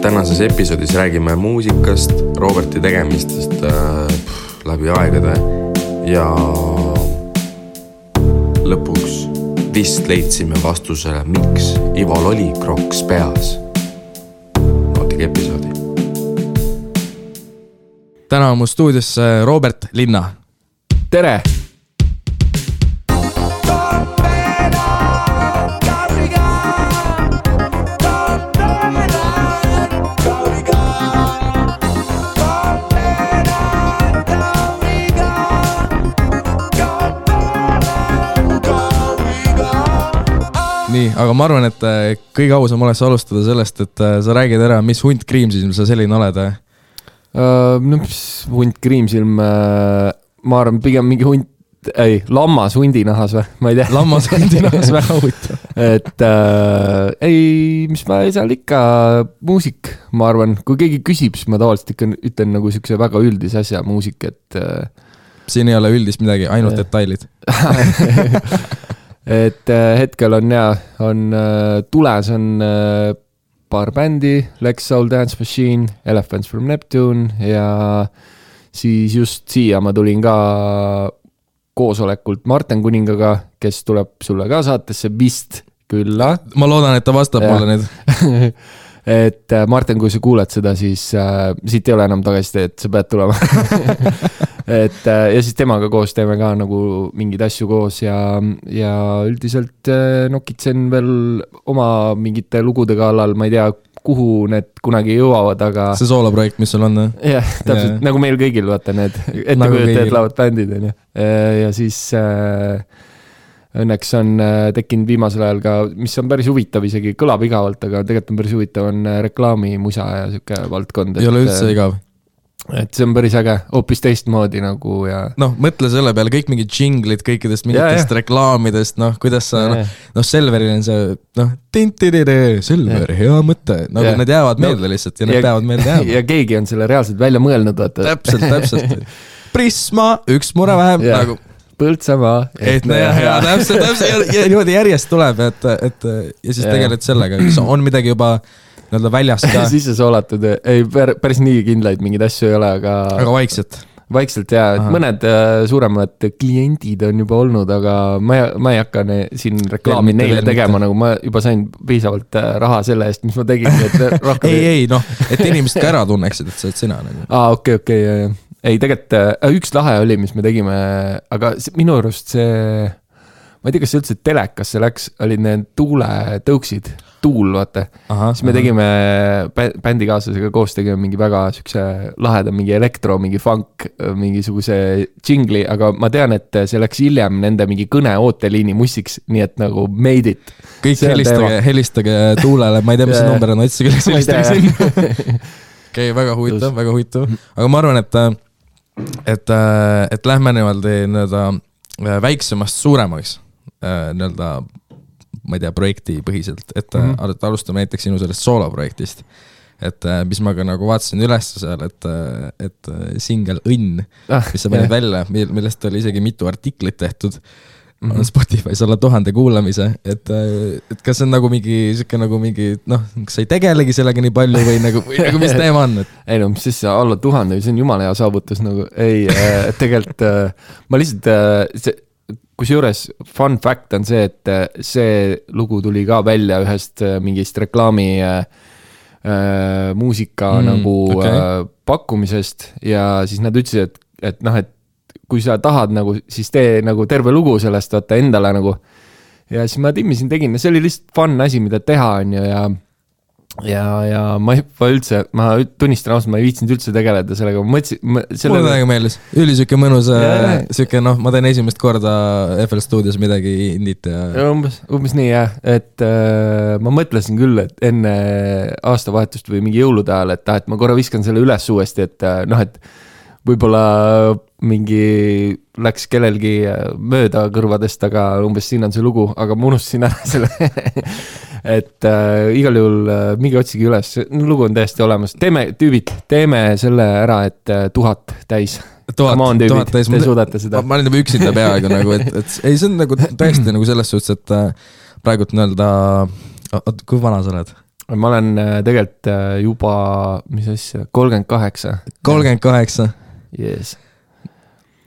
Tänases episoodis räägime muusikast, Roberti tegemistest läbi aegade ja lõpuks vist leidsime vastusele, miks Ival oli kroks peas. Nautige episoodi. Täna on mu stuudios Robert Linna. Tere! Nii, aga ma arvan, et kõige ausam oleks alustada sellest, et sa räägid ära, mis hunt kriimsilm sa selline oled? No mis hunt kriimsilm, ma arvan pigem mingi hunt, lammas hundinahas või, ma ei tea. Lammas hundinahas väga huvitav. Et mis ma ei saa ikka muusik, ma arvan, kui keegi küsib, siis ma tavaliselt ikka ütlen nagu siukse väga üldis asja muusik, et siin ei ole üldist midagi, ainult detailid. Et hetkel on tules on paar bändi, Lex Soul Dance Machine, Elephants from Neptune ja siis just siia ma tulin ka koosolekult Martin Kuningaga, kes tuleb sulle ka saatesse vist külla. Ma loodan, et ta vastab mulle nüüd. Et Martin, kui sa kuuled seda, siis siit ei ole enam tagasi, et sa pead tulema. Ja siis temaga koos teeme ka nagu mingid asju koos ja üldiselt nokitsen veel oma mingite lugude kallal, ma ei tea, kuhu need kunagi jõuavad, aga see sooloprojekt, mis sul on? Jah, täpselt, nagu meil kõigil, vaata need ettekujutajad laavad bändid, ja siis õnneks on tekkinud viimasel ajal ka, mis on päris huvitav, isegi kõlab igavalt, aga tegelikult on päris huvitav, on reklaamimusa ja siuke valdkond. Ei ole üldse igav. Et see on päris äge, hoopis teistmoodi nagu ja mõtle selle peale, kõik mingid džinglid kõikidest mingitest reklaamidest, kuidas sa, Selveril on see, Selver, hea mõte, nagu need jäävad meelde lihtsalt ja need peavad meelde jääma. Ja keegi on selle reaalselt välja mõelnud, vaata. Täpselt. Prisma, üks mure vähem, nagu Põltsamaa. Ja täpselt, ja niimoodi järjest tuleb, ja siis tegelikult sellega, on midagi juba väljas ka. Sisse soolatud, ei päris nii kindlaid mingid asju ei ole, aga vaikselt ja mõned suuremad kliendid on juba olnud, aga ma ei hakka siin reklaami neile tegema, nagu ma juba sain piisavalt raha selle eest, mis ma tegin. Et inimesed ka ära tunneksid, et sa oled sina. Okei. Ei, tegelikult üks lahe oli, mis me tegime, aga minu arust see, ma ei tea, kas see üldse telekas see läks, olid need tuuletõuksid, tuul, vaata. Siis me tegime bändikaaslasega koos tegime mingi väga sükse laheda, mingi elektro, mingi funk, mingisuguse džingli, aga ma tean, et see läks hiljem nende mingi kõne ooteliini mussiks, nii et nagu made it. Kõik helistage tuulele, ma ei tea, mis see number on, otsige helistage sinna. Okei, väga huvitav. Aga ma arvan, et lähme niimoodi väiksemast suuremaks ma ei tea, projekti põhiselt, et alustame näiteks sinu sellest sooloprojektist, et mis ma ka nagu vaatasin üles seal, et single Õnn, mis sa panid välja, millest oli isegi mitu artiklit tehtud on Spotify's alla 1000 kuulamise, et kas see on nagu mingi, kas sa ei tegelegi sellega nii palju või nagu mis teema on? Ei mis siis alla 1000, see on jumala hea saavutus nagu, tegelikult ma lihtsalt kusjuures fun fact on see, et see lugu tuli ka välja ühest mingist reklaami muusika pakkumisest ja siis nad ütlesid, et kui sa tahad nagu, siis tee nagu terve lugu sellest vaata endale nagu. Ja siis ma timmisin tegin ja see oli lihtsalt fun asi, mida teha on ja ma tunnistan ausalt, ma ei viitsinud üldse tegeleda sellega. Mulle väga meeldis. Üli süke mõnus, süke, ma teen esimest korda FL Studios midagi indit ja umbes nii jah, et ma mõtlesin küll, et enne aastavahetust või mingi jõulude ajal, et ma korra viskan selle üles uuesti, et võib-olla mingi läks kellelgi mööda kõrvadest, aga umbes siin on see lugu, aga ma unustasin ära selle. Et igal juhul mingi otsigi üles, lugu on täiesti olemas. Teeme selle ära, et 1000 täis. 1000 täis. Te suudate seda. Ma olen juba üksinda peaaegu nagu, et ei, see on nagu täiesti nagu selles suhtes, et praegult kui vana sa oled? ma olen tegelikult juba, mis asja, 38. 38? Yes.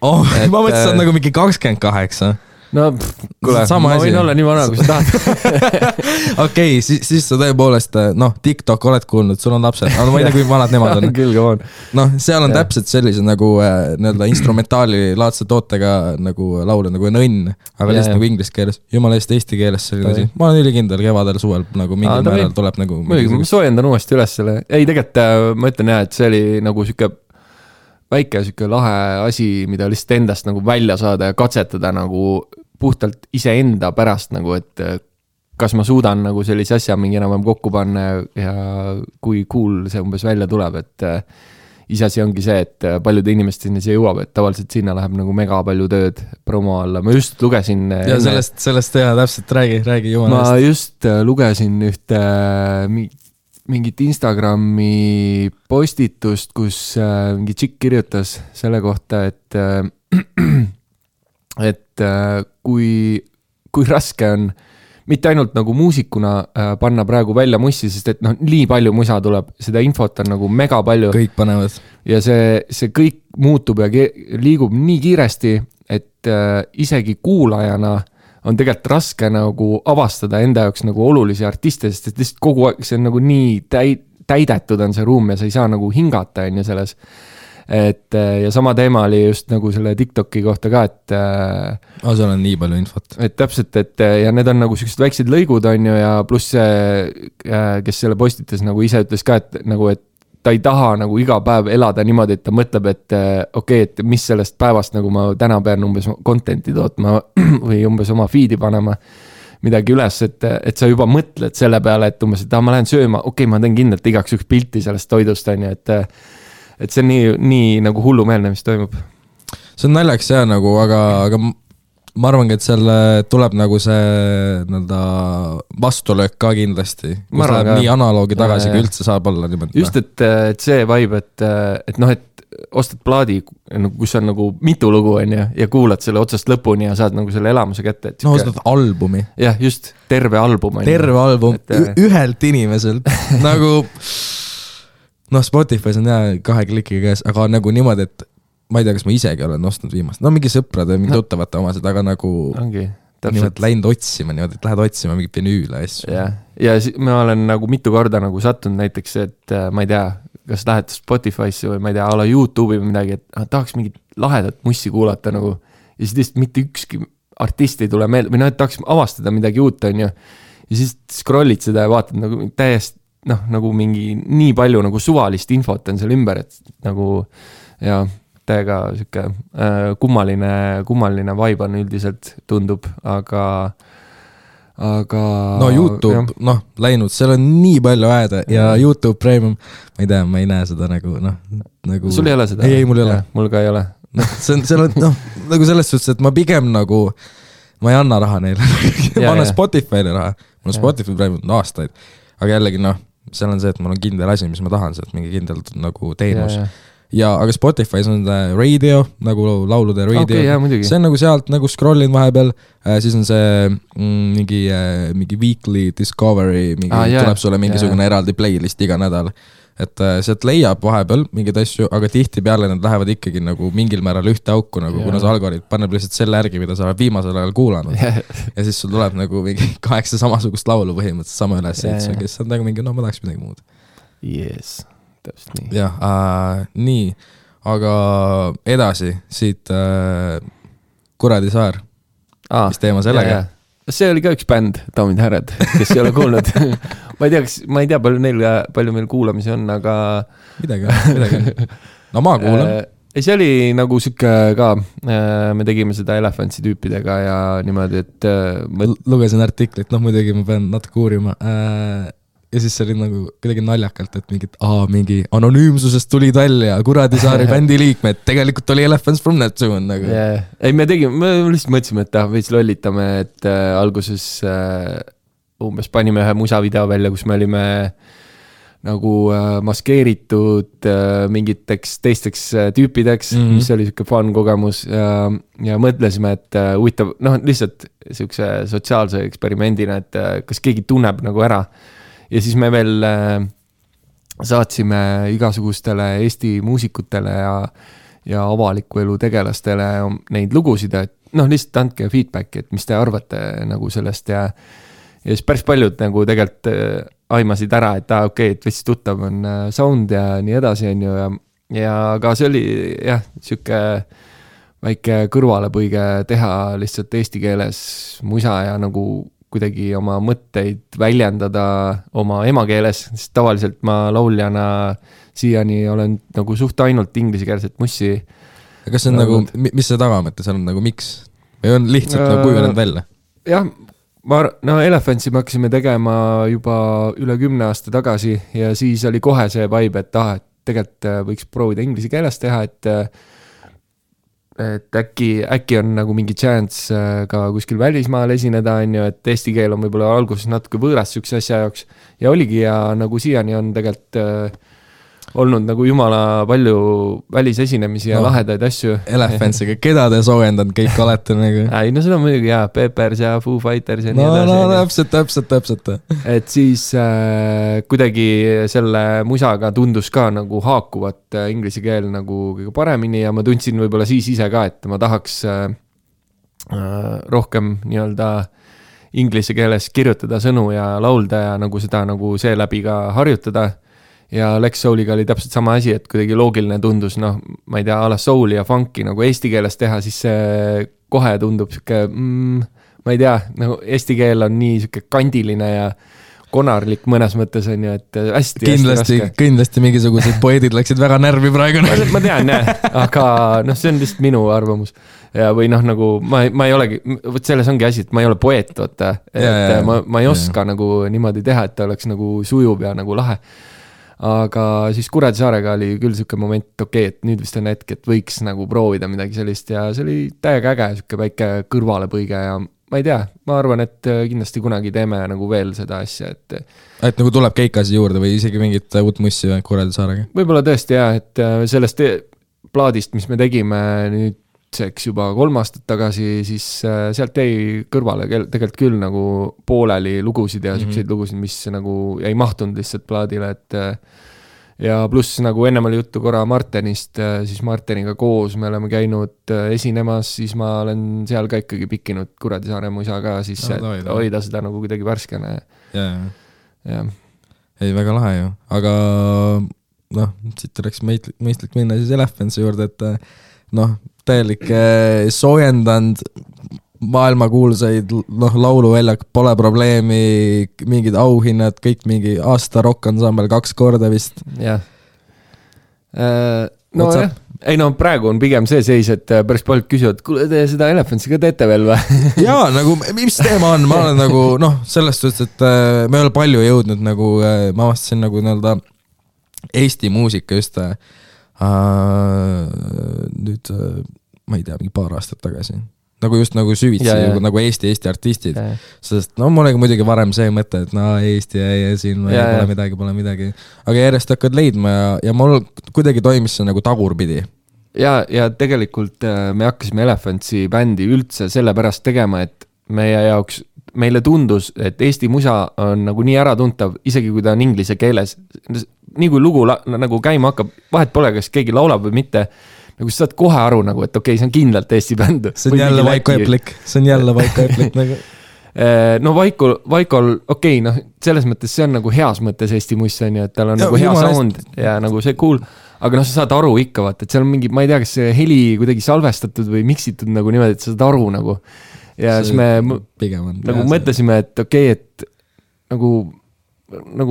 Oh, ma mõtlesin, et nagu mingi 28. No, kuule, ma võin olla nii vana, kui sa tahad. Okei, siis sa tõepoolest, TikTok oled kuulnud, sul on lapsed, aga ma ei tea, kui vanad nemad on. Küll, come on. Seal on täpselt sellise nagu nii-öelda instrumentaali laadse tootega nagu laule nagu Õnn, aga lihtsalt nagu inglise keeles, jumala eest eesti keeles selline asi. Ma olen ülikindel kevadel suvel nagu mingil määral tuleb nagu... Ma soojendan uuesti üles selle. Ei, tegelikult ma ütlen jah, et see oli nagu siuke väike siuke lahe asi, mida lihtsalt endast nagu välja saada ja katsetada nagu puhtalt iseenda pärast nagu, et kas ma suudan nagu sellise asja mingi enam kokku panna ja kui cool see umbes välja tuleb, et iseasi ongi see, et paljude inimesteni see jõuab, et tavaliselt sinna läheb nagu mega palju tööd promo alla. Ma just lugesin... Ja sellest teha täpselt, räägi jumala eest. Ma just lugesin ühte mingit Instagrami postitust, kus mingi tšikk kirjutas selle kohta, et kui raske on mitte ainult nagu muusikuna panna praegu välja mussi, sest et nii palju musa tuleb, seda infot on nagu mega palju. Kõik panevad. Ja see kõik muutub ja liigub nii kiiresti, et isegi kuulajana on tegelikult raske nagu avastada enda jaoks nagu olulisi artiste, sest et lihtsalt kogu aeg see on nagu nii täidetud on see ruum ja sa ei saa nagu hingata on ju selles. Ja sama teema oli just nagu selle TikToki kohta ka, et seal on nii palju infot. Et täpselt, et ja need on nagu sellised väiksed lõigud on ju ja pluss see, kes selle postitas nagu ise ütles ka, et nagu, et ta ei taha nagu iga päev elada niimoodi, et ta mõtleb, et okei, et mis sellest päevast nagu ma täna pean umbes contenti tootma või umbes oma feed'i panema midagi üles, et sa juba mõtled selle peale, et umbes, et ma lähen sööma, okei, ma teen kindlalt igaks üks pilti sellest toidust, on ju, et see on nii nagu hullumeelne, mis toimub. See on naljaks jah nagu, aga ma arvangi, et selle tuleb nagu see vastulöök ka kindlasti, kus läheb nii analoogi tagasi, kui üldse saab olla niimoodi. Just, et see vibe, et ostad plaadi, kus on nagu mitu lugu on ja kuulad selle otsast lõpuni ja saad nagu selle elamuse kätte. Ostad albumi. Jah, just, terve album. Terve album, ühelt inimeselt. Nagu, Spotify's on jah 2 klikiga käes, aga nagu niimoodi, et ma ei tea, kas ma isegi olen ostnud viimast. Mingi sõprade, mingi tuttavate omased, aga nagu niimoodi läinud otsima, niimoodi, et lähed otsima mingi vinüüle asju. Ja ma olen nagu mitu korda nagu sattunud näiteks, et ma ei tea, kas lähed Spotify'sse või ma ei tea, ala YouTube'i või midagi, et tahaks mingit lahedat mussi kuulata nagu ja siis lihtsalt mitte ükski artist ei tule meelde või et tahaks avastada midagi uut, on ju. Ja siis scrollid seda ja vaatad nagu täiesti nagu mingi nii palju nagu suvalist infot on seal ümber, et nagu ja täiega siuke kummaline vibe on üldiselt tundub, aga YouTube, läinud, seal on nii palju aeda ja YouTube Premium, ma ei tea, ma ei näe seda nagu sul ei ole seda? Ei, mul ei ole. Mul ka ei ole. Seal on nagu selles suhtes, et ma pigem nagu ma ei anna raha neile ma annan Spotify'le raha, mul on Spotify Premium aastaid, aga jällegi seal on see, et mul on kindel asi, mis ma tahan sealt, mingi kindel nagu teenus ja aga Spotify's on radio, nagu laulude radio, see on nagu sealt nagu scrollin vahepeal, siis on see mingi weekly discovery, tuleb sulle mingisugune eraldi playlist iga nädal, et sealt leiab vahepeal mingid asju, aga tihti peale need lähevad ikkagi nagu mingil määral ühte auku, nagu kuna see algoritm paneb lihtsalt selle järgi, mida sa oled viimasel ajal kuulanud ja siis sul tuleb nagu mingi 8 samasugust laulu põhimõtteliselt sama üles, kes on nagu mingi, ma tahaks midagi muud. Yes. Täpselt nii. Jah, nii, aga edasi siit Kuradi saar, mis teema sellega? See oli ka üks bänd, daamid härrad, kes ei ole kuulnud. ma ei tea, palju meil kuulamisi on, aga... Midagi. No ma kuulan. See oli nagu siuke ka, me tegime seda Elephantsi tüüpidega ja niimoodi, et... Lugesin artiklit, muidugi ma pean natuke uurima... Ja siis see oli nagu kuidagi naljakalt, et mingi anonüümsusest tulid välja Kuradi saari bändi liikmed, tegelikult oli Elephants from Neptune nagu. Ei, me lihtsalt mõtlesime, et veits lollitame, et alguses umbes panime ühe musavideo välja, kus me olime nagu maskeeritud mingiteks teisteks tüüpideks, mis oli siuke fun kogemus ja mõtlesime, et huvitav, lihtsalt siukse sotsiaalse eksperimendina, et kas keegi tunneb nagu ära. ja siis me veel saatsime igasugustele Eesti muusikutele ja avaliku elu tegelastele neid lugusid, et noh, lihtsalt andke feedbacki, et mis te arvate nagu sellest ja siis päris paljud nagu tegelikult aimasid ära, et okei, et veits tuttav on sound ja nii edasi on ju ja ka see oli jah, siuke väike kõrvalepõige teha lihtsalt eesti keeles musa ja nagu kuidagi oma mõtteid väljendada oma emakeeles, sest tavaliselt ma lauljana siiani olen nagu suht ainult ingliskeelset mussi. Kas see on nagu, mis see tagamõte seal on nagu, miks? Või on lihtsalt nagu kujunenud välja? Jah, Elephantsi me hakkasime tegema juba üle 10 aasta tagasi ja siis oli kohe see vibe, et tegelikult võiks proovida inglise keeles teha, et äkki on nagu mingi chance ka kuskil välismaal esineda, on ju, et eesti keel on võib-olla alguses natuke võõras sükse asja jaoks ja oligi ja nagu siiani on tegelikult olnud nagu jumala palju välisesinemisi ja lahedaid asju. Elephantsiga, keda te soojendanud kõik olete nagu? Ei, no seda on muidugi jah, Peppers ja Foo Fighters ja nii edasi. No, täpselt. Et siis kuidagi selle musaga tundus ka nagu haakuvat inglise keel nagu kõige paremini ja ma tundsin võib-olla siis ise ka, et ma tahaks rohkem nii-öelda inglise keeles kirjutada sõnu ja laulda ja nagu seda nagu seeläbi ka harjutada. Ja Lex Souliga oli täpselt sama asi, et kuidagi loogiline tundus, noh, ma ei tea, ala souli ja funki nagu eesti keeles teha, siis see kohe tundub siuke, ma ei tea, nagu eesti keel on nii siuke kandiline ja konarlik mõnes mõttes on ju, et hästi raske. Kindlasti mingisugused poedid läksid väga närvi praegu. Ma tean, jah, aga noh, see on lihtsalt minu arvamus. Ja või noh, nagu ma ei olegi, võt selles ongi asi, et ma ei ole poeet, võtta, et ma ei oska nagu niimoodi teha, et ta oleks nagu sujub ja nagu lahe. Aga siis Kuradisaarega oli küll siuke moment, okei, et nüüd vist on hetk, et võiks nagu proovida midagi sellist ja see oli täiega äge, siuke väike kõrvalepõige ja ma ei tea, ma arvan, et kindlasti kunagi teeme nagu veel seda asja, et nagu tuleb keikasi juurde või isegi mingit uut mussi Kuradisaarega? Võib-olla tõesti jah, et sellest plaadist, mis me tegime nüüd juba 3 aastat tagasi, siis sealt jäi kõrvale tegelikult küll nagu pooleli lugusid ja selliseid lugusid, mis nagu ei mahtunud lihtsalt plaadile, et ja pluss nagu ennem oli juttu korra Martenist, siis Marteniga koos me oleme käinud esinemas, siis ma olen seal ka ikkagi pikkinud Kuradisaare musa ka, siis hoida seda nagu kuidagi värskene. Ja. Ei, väga lahe ju, aga noh, siit oleks mõistlik minna siis Elephantsi juurde, et noh, täielik soojendanud maailmakuulsaid lauluväljak, pole probleemi, mingid auhinnad, kõik mingi aasta rock-ensemble 2 korda vist. Jah. No jah, ei no praegu on pigem see seis, et päris paljud küsivad, kuule te seda Elephantsi ka teete veel või? Jaa, nagu mis teema on, ma olen nagu sellest suhtes, et me ei ole palju jõudnud nagu, ma avastasin nagu nii-öelda Eesti muusika just nüüd ma ei tea, mingi paar aastat tagasi nagu just nagu süvitsi nagu Eesti artistid, sest mul oli muidugi varem see mõte, et Eesti ja siin pole midagi, aga järjest hakkad leidma ja mul kuidagi toimis see nagu tagurpidi. Ja tegelikult me hakkasime Elephantsi bändi üldse sellepärast tegema, et meile tundus, et Eesti musa on nagu nii äratuntav, isegi kui ta on inglise keeles. Nii kui lugu nagu käima hakkab, vahet pole, kas keegi laulab või mitte, nagu sa saad kohe aru nagu, et okei, see on kindlalt Eesti bänd. See on jälle Vaiko Eplik nagu. No Vaikol, okei, noh, selles mõttes see on nagu heas mõttes Eesti muss on ju, et tal on nagu hea sound ja nagu see cool, aga noh, sa saad aru ikka vaat, et seal on mingi, ma ei tea, kas see heli kuidagi salvestatud või miksitud nagu niimoodi, et sa saad aru nagu ja siis me nagu mõtlesime, et okei, et nagu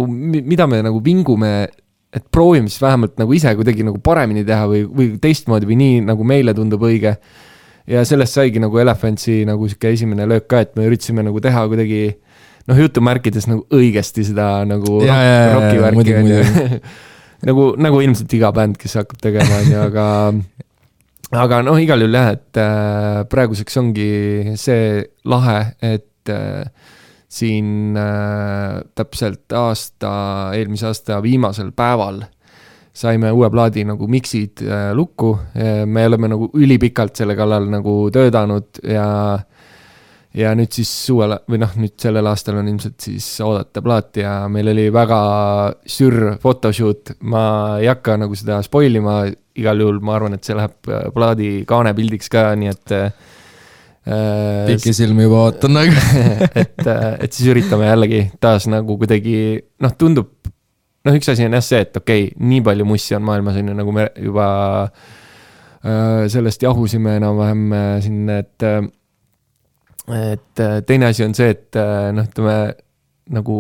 mida me nagu vingume, et proovime siis vähemalt nagu ise kuidagi nagu paremini teha või teistmoodi või nii nagu meile tundub õige. Ja sellest saigi nagu Elephantsi nagu siuke esimene löök ka, et me üritasime nagu teha kuidagi jutumärkides nagu õigesti seda nagu rockivärki. Nagu ilmselt iga bänd, kes hakkab tegema, aga noh, igal juhul jah, et praeguseks ongi see lahe, et siin täpselt eelmise aasta viimasel päeval saime uue plaadi nagu miksid lukku. Me oleme nagu ülipikalt selle kallal nagu töödanud ja ja nüüd siis suvel või noh, nüüd sellel aastal on ilmselt siis oodata plaat ja meil oli väga sür photoshoot, ma ei hakka nagu seda spoilima, igal juhul ma arvan, et see läheb plaadi kaanepildiks ka, nii et pikisilmi juba ootan nagu. et siis üritame jällegi taas nagu kuidagi, noh tundub, noh üks asi on jah see, et okei, nii palju mussi on maailmas, on ju, nagu me juba sellest jahusime enam-vähem siin, et teine asi on see, et noh, ütleme nagu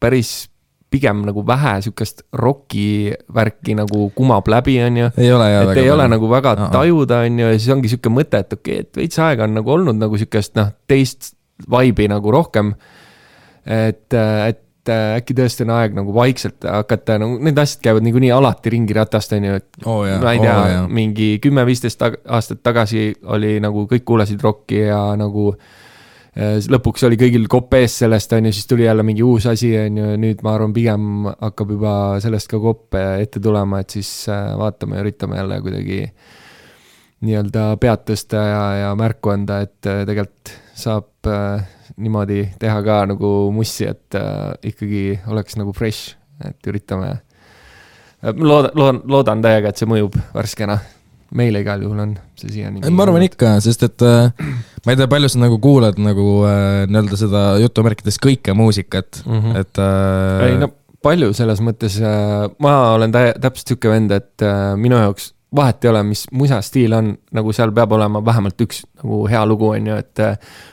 päris pigem nagu vähe sükast rocki värki nagu kumab läbi, on ju. Ei ole, et ei ole nagu väga tajuda, on ju, ja siis ongi süke mõte, et okei, et veits aega on nagu olnud nagu sükest, noh, teist vibe'i nagu rohkem, et äkki tõesti on aeg nagu vaikselt hakata, nagu need asjad käivad niikuinii alati ringi ratast, on ju, et ma ei tea, mingi 10-15 aastat tagasi oli nagu kõik kuulasid rocki ja nagu lõpuks oli kõigil kopp ees sellest, on ju, siis tuli jälle mingi uus asi, on ju, nüüd ma arvan pigem hakkab juba sellest ka kopp ette tulema, et siis vaatame ja üritame jälle kuidagi nii-öelda pead tõsta ja märku anda, et tegelikult saab niimoodi teha ka nagu mussi, et ikkagi oleks nagu fresh, et üritame. Loodan täiega, et see mõjub värskena. Meile igal juhul on see siiani. Ma arvan ikka, sest et ma ei tea, palju sa nagu kuulad nagu nii-öelda seda jutumärkides kõike muusikat, et ei, no palju selles mõttes, ma olen täpselt siuke vend, et minu jaoks vahet ei ole, mis musastiil on, nagu seal peab olema vähemalt üks nagu hea lugu, on ju, et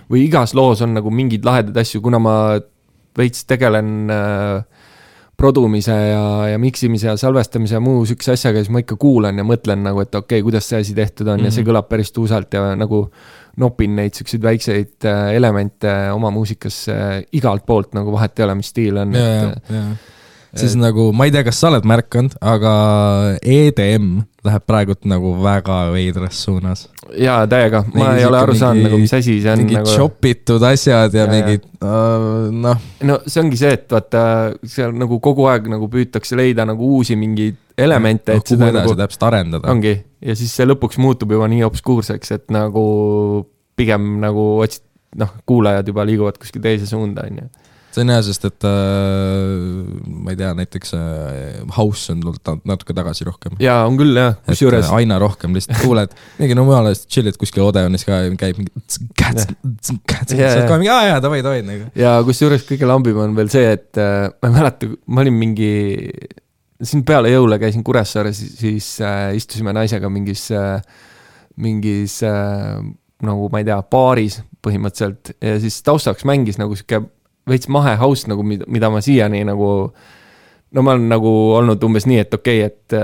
või igas loos on nagu mingid lahedad asju, kuna ma veits tegelen produmise ja miksimise ja salvestamise ja muu sükse asjaga, siis ma ikka kuulan ja mõtlen nagu, et okei, kuidas see asi tehtud on ja see kõlab päris tuusalt ja nagu nopin neid sükseid väikseid elemente oma muusikasse igalt poolt, nagu vahet ei ole, mis stiil on. Siis nagu, ma ei tea, kas sa oled märkanud, aga EDM läheb praegult nagu väga veidras suunas. Jaa, täiega. Ma ei ole aru saanud, nagu mis asi see on. Mingid nagu shopitud asjad ja mingid, noh. No see ongi see, et vaata, seal nagu kogu aeg nagu püütakse leida nagu uusi mingeid elemente. Kuhu edasi nagu täpselt arendada. Ongi. Ja siis see lõpuks muutub juba nii obskuurseks, et nagu pigem nagu otsid, noh, kuulajad juba liiguvad kuskil teise suunda, on ju. See on hea, sest et ma ei tea, näiteks house on tulnud natuke tagasi rohkem. Jaa, on küll, jah. Et aina rohkem lihtsalt kuuled. Mingi no mujal chillid kuskil Odeonis ka käib mingi davai. Ja kusjuures kõige lambim on veel see, et ma ei mäleta, ma olin mingi siin peale jõule käisin Kuressaares, siis istusime naisega mingis nagu ma ei tea, baaris põhimõtteliselt ja siis taustaks mängis nagu siuke veits mahe house, nagu mida ma siiani nagu, no ma olen nagu olnud umbes nii, et okei, et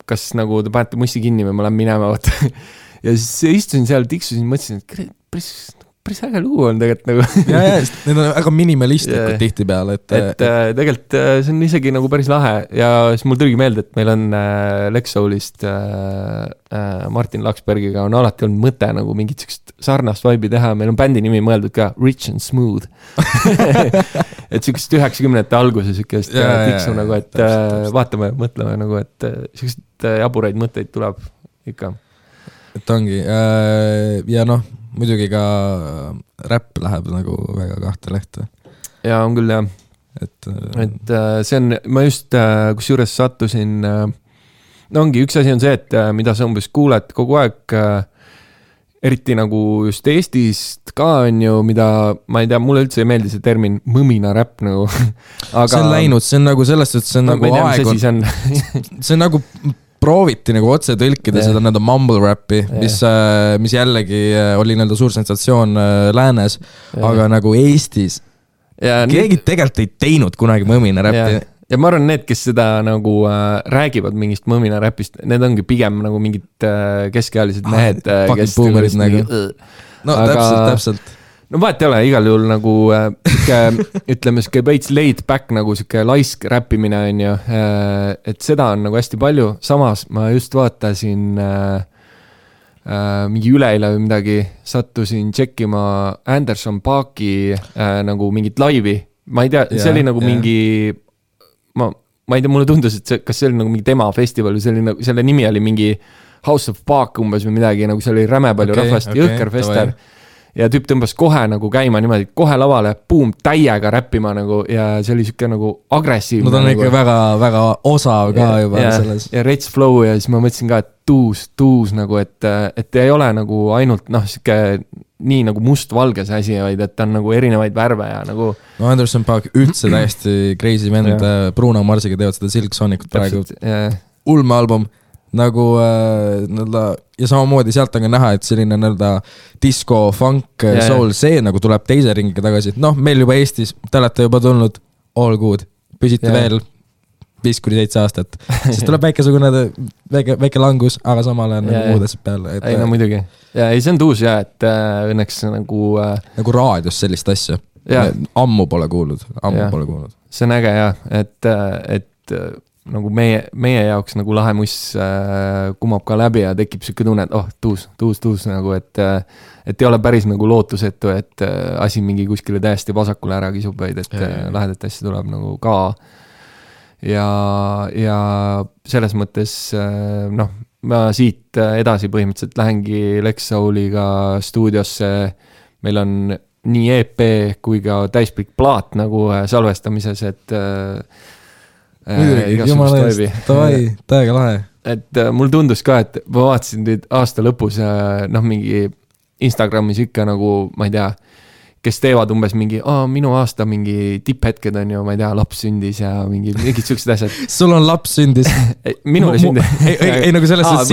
kas nagu te panete mussi kinni või ma lähen minema, ja siis istusin seal, tiksusin, mõtlesin, et päris äge lugu on tegelikult nagu. Ja, need on väga minimalistlikud tihti peale. Et tegelikult see on isegi nagu päris lahe ja siis mul tuligi meelde, et meil on Lex Soulist Martin Laksbergiga on alati olnud mõte nagu mingit sarnast vibe'i teha, meil on bändi nimi mõeldud ka Rich and Smooth. Et sükest 90-ndate alguse sükest tiksu nagu, et vaatame, mõtleme nagu, et sükest jaburaid mõtteid tuleb ikka. Et ongi ja noh, muidugi ka räpp läheb nagu väga kahte lehte. Ja on küll, jah. Et see on, ma just kus juures sattusin, no ongi, üks asi on see, et mida sa umbes kuuled kogu aeg, eriti nagu just Eestist ka on ju, mida, ma ei tea, mulle üldse ei meeldi see termin mõmina räpp nagu. Aga see on läinud, see on nagu sellest, et see on nagu aeg on, see on nagu prooviti nagu otse tõlkida seda nende mumble rappi, mis jällegi oli nende suur sensatsioon läänes, aga nagu Eestis keegi tegelikult ei teinud kunagi mõmina räppi. Ja ma arvan, need, kes seda nagu räägivad mingist mõmina räpist, need ongi pigem nagu mingid keskealised mehed, kes boomerid nagu. No täpselt. No vaat ei ole, igal juhul nagu ütleme, siuke veits laid back nagu siuke laisk räppimine on ju, et seda on nagu hästi palju, samas ma just vaatasin mingi üleile või midagi, sattusin tšekkima Anderson Paaki nagu mingit laivi, ma ei tea, see oli nagu mingi ma ei tea, mulle tundus, et kas see oli nagu mingi tema festival või see oli nagu, selle nimi oli mingi House of Paak umbes või midagi, nagu see oli räme palju rahvast, jõhker fester. ja tüüp tõmbas kohe nagu käima niimoodi, kohe lavale, boom, täiega räppima nagu ja see oli siuke nagu agressiivne. No ta on nagu, ikka väga, väga osav ka juba selles. Ja rets flow ja siis ma mõtlesin ka, et tuus nagu, et ei ole nagu ainult siuke nii nagu must-valge see asi, vaid et on nagu erinevaid värve ja nagu. No Anderson Paak üldse täiesti crazy vend, Bruno Marsiga teevad seda Silk Sonicut praegu. Ulme album nagu ja samamoodi sealt on ka näha, et selline disco, funk, soul, see nagu tuleb teise ringiga tagasi. Meil juba Eestis, te olete juba tulnud all good, püsite veel 5-7 aastat, siis tuleb väike langus, aga samal ajal nagu muud asjad peale. Ei, no muidugi. Ja ei, see on tuus et õnneks nagu... Nagu raadios sellist asja. Ammu pole kuulnud. See on äge et nagu meie jaoks nagu lahe muss kumab ka läbi ja tekib siuke tunne, et tuus nagu, et ei ole päris nagu lootusetu, et asi mingi kuskile täiesti vasakule ära kisub, vaid et lahedat asja tuleb nagu ka ja selles mõttes ma siit edasi põhimõtteliselt lähengi Lex Souliga stuudiosse, meil on nii EP kui ka täispikk plaat nagu salvestamises, et muidugi, jumala eest, täiega lahe. Et mul tundus ka, et ma vaatasin teid aasta lõpus mingi Instagramis ikka nagu, ma ei tea, kes teevad umbes mingi, minu aasta mingi tipphetked on ju, ma ei tea, laps sündis ja mingid siuksed asjad. Sul on laps sündis? Minule sündis. Ei nagu selles, et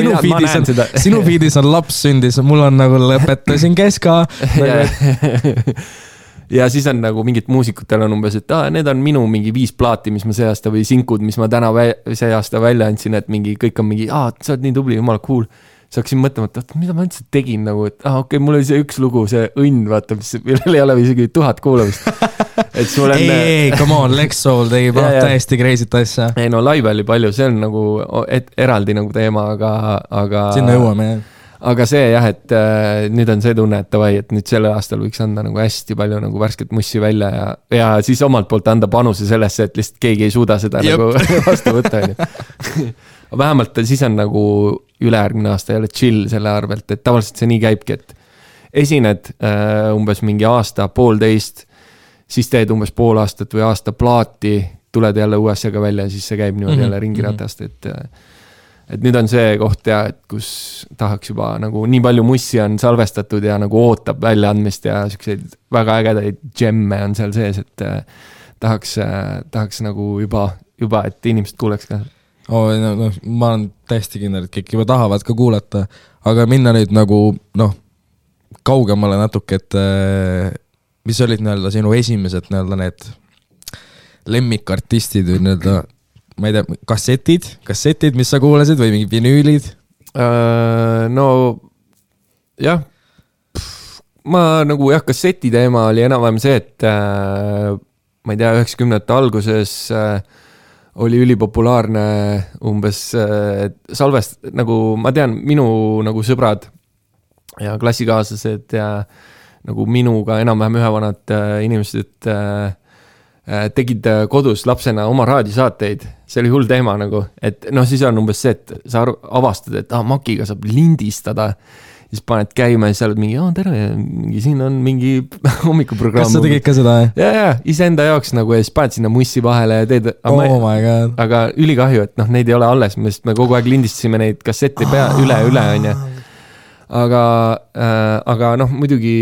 sinu feedis on laps sündis, mul on nagu lõpetasin keska. Ja siis on nagu mingid muusikutel on umbes, et need on minu mingi 5 plaati, mis ma see aasta või sinkud, mis ma täna see aasta välja andsin, et mingi, kõik on mingi, sa oled nii tubli, jumala cool. Saaksin mõtlema, et mida ma üldse tegin nagu, et okei, mul oli see üks lugu, see õnn, vaata, millel ei ole isegi 1000 kuulamist. Et sul on... Ei, come on, Lex Soul tegi täiesti crazy't asja. Ei, no live oli palju, see on nagu eraldi nagu teema, aga... Sinna jõuame, jah. Aga see et nüüd on see tunne, et tavai, et nüüd selle aastal võiks anda nagu hästi palju nagu värsket mussi välja ja siis omalt poolt anda panuse sellesse, et lihtsalt keegi ei suuda seda nagu vastu võtta. Vähemalt siis on nagu ülejärgmine aasta jälle chill selle arvelt, et tavaliselt see nii käibki, et esined umbes mingi aasta, 1,5, siis teed umbes 5 aastat või aasta plaati, tuled jälle uue asjaga välja ja siis see käib niimoodi jälle ringiratast, et nüüd on see koht et kus tahaks juba nagu nii palju mussi on salvestatud ja nagu ootab väljaandmist ja selliseid väga ägedaid gemme on seal sees, et tahaks nagu juba, et inimesed kuuleks ka. Ma olen täiesti kindel, et kõik juba tahavad ka kuulata, aga minna nüüd nagu kaugemale natuke, et mis olid sinu esimesed need lemmikartistid või ma ei tea, kassetid, mis sa kuulasid või mingi vinüülid? No jah, ma nagu kasseti teema oli enam-vähem see, et ma ei tea, 90-ndate alguses oli ülipopulaarne umbes salvest, nagu ma tean, minu nagu sõbrad ja klassikaaslased ja nagu minuga enam-vähem ühevanad inimesed tegid kodus lapsena oma raadiosaateid, see oli hull teema nagu, et siis on umbes see, et sa avastad, et Makiga saab lindistada, siis paned käima ja siis oled mingi, tere, siin on mingi hommikuprogramm. Kas sa tegid ka seda? Ja, iseenda jaoks nagu ja siis paned sinna mussi vahele ja teed, my God. Aga ülikahju, et neid ei ole alles, me kogu aeg lindistasime neid kassette üle, on ju. Aga muidugi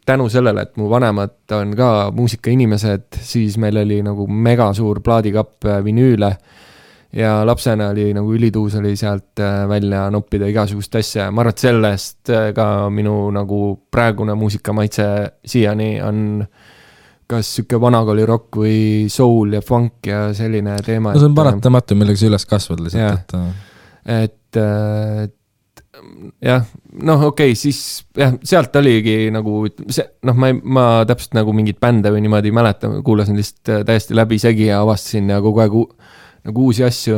tänu sellele, et mu vanemad on ka muusikainimesed, siis meil oli nagu mega suur plaadikapp vinüüle ja lapsena oli nagu ülituus oli sealt välja noppida igasugust asja. Ma arvan, et sellest ka minu nagu praegune muusikamaitse siiani on kas siuke vanakooli rock või soul ja funk ja selline teema. No see on paratamatu, millega sa üles kasvad lihtsalt. Et jah, okei, siis jah, sealt oligi nagu see, ma täpselt nagu mingid bände või niimoodi mäletan, kuulasin lihtsalt täiesti läbi segi ja avastasin ja kogu aeg nagu uusi asju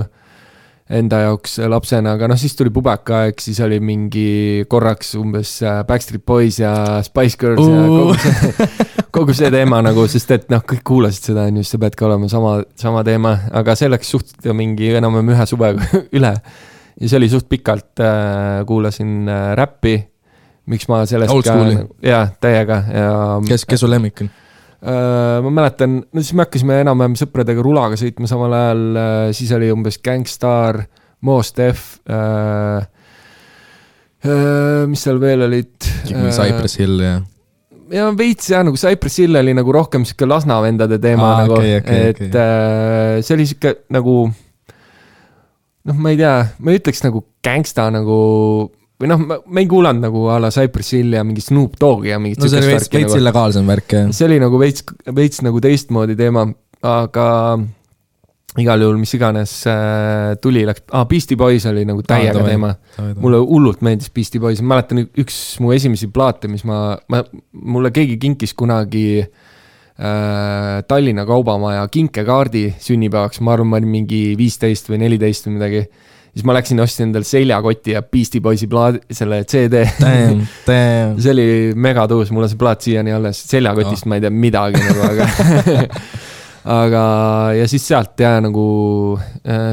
enda jaoks lapsena, aga siis tuli pubekaaeg, siis oli mingi korraks umbes Backstreet Boys ja Spice Girls ja kogu see teema nagu, sest et kõik kuulasid seda, just sa pead ka olema sama teema, aga see läks suht mingi enam-vähem ühe suvega üle. Ja see oli suht pikalt, kuulasin räppi, miks ma sellest Old school'i. jah, täiega ja kes su lemmik on? Ma mäletan, no siis me hakkasime enam-vähem sõpradega rulaga sõitma samal ajal, siis oli umbes Gangstar, Mos Def, mis seal veel olid? Cypress Hill ja veits jah, nagu Cypress Hill oli nagu rohkem siuke Lasna vendade teema nagu, et see oli siuke nagu noh, ma ei tea, ma ütleks nagu gangsta nagu või noh, ma ei kuulanud nagu a la Cypress Hill ja mingi Snoop Doggi ja mingit no see oli veits illegaalsem värk see oli nagu veits nagu teistmoodi teema, aga igal juhul mis iganes tuli, läks, Beastie Boys oli nagu täiega teema. Mulle hullult meeldis Beastie Boys, ma mäletan üks mu esimesi plaate, mis mulle keegi kinkis kunagi Tallinna Kaubamaja kinkekaardi sünnipäevaks, ma arvan, ma olin mingi 15 või 14 või midagi. Siis ma läksin ostsin endal seljakoti ja Beastie Boysi selle CD. Damn. See oli mega tõus, mul on see plaat siiani alles. Seljakotist ma ei tea midagi nagu, aga ja siis sealt jah, nagu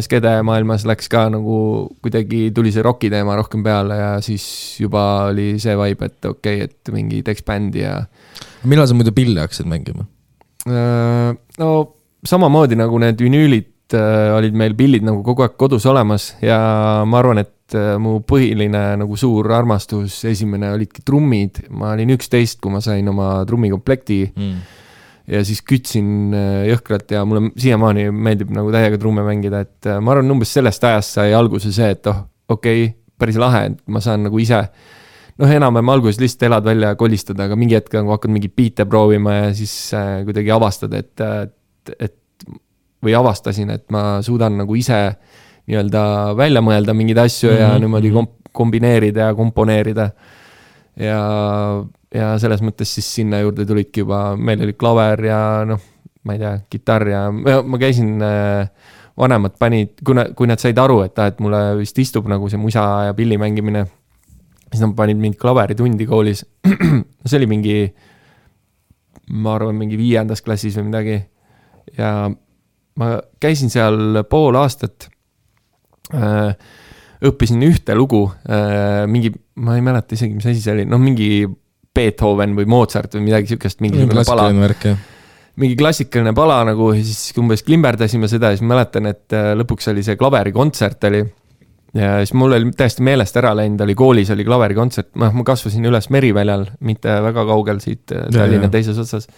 skede maailmas läks ka nagu kuidagi tuli see rocki teema rohkem peale ja siis juba oli see vibe, et okei, et mingi teeks bändi ja... Millal sa muidu pilli hakkasid mängima? No samamoodi nagu need vinüülid olid meil pillid nagu kogu aeg kodus olemas ja ma arvan, et mu põhiline nagu suur armastus esimene olidki trummid. Ma olin 11, kui ma sain oma trummikomplekti ja siis kütsin jõhkralt ja mulle siiamaani meeldib nagu täiega trumme mängida, et ma arvan, umbes sellest ajast sai alguse see, et okei, päris lahe, et ma saan nagu ise enam-vähem alguses lihtsalt elad välja ja kolistada, aga mingi hetk nagu hakkad mingi biite proovima ja siis kuidagi avastad, et või avastasin, et ma suudan nagu ise nii-öelda välja mõelda mingeid asju ja niimoodi kombineerida ja komponeerida. Ja selles mõttes siis sinna juurde tulidki juba, meil oli klaver ja ma ei tea, kitarr ja ma käisin, vanemad panid, kui nad said aru, et mulle vist istub nagu see musa ja pilli mängimine, siis nad panid mingi klaveritundi koolis. See oli mingi, ma arvan, mingi 5. klassis või midagi ja ma käisin seal pool aastat, õppisin ühte lugu, mingi, ma ei mäleta isegi, mis asi see oli, mingi Beethoven või Mozart või midagi siukest, mingi klassikaline pala nagu, siis umbes klimberdasime seda ja siis mäletan, et lõpuks oli see klaverikontsert oli ja siis mul oli täiesti meelest ära läinud, oli koolis, oli klaverikontsert, ma kasvasin üles Meriväljal, mitte väga kaugel siit Tallinna teises otsas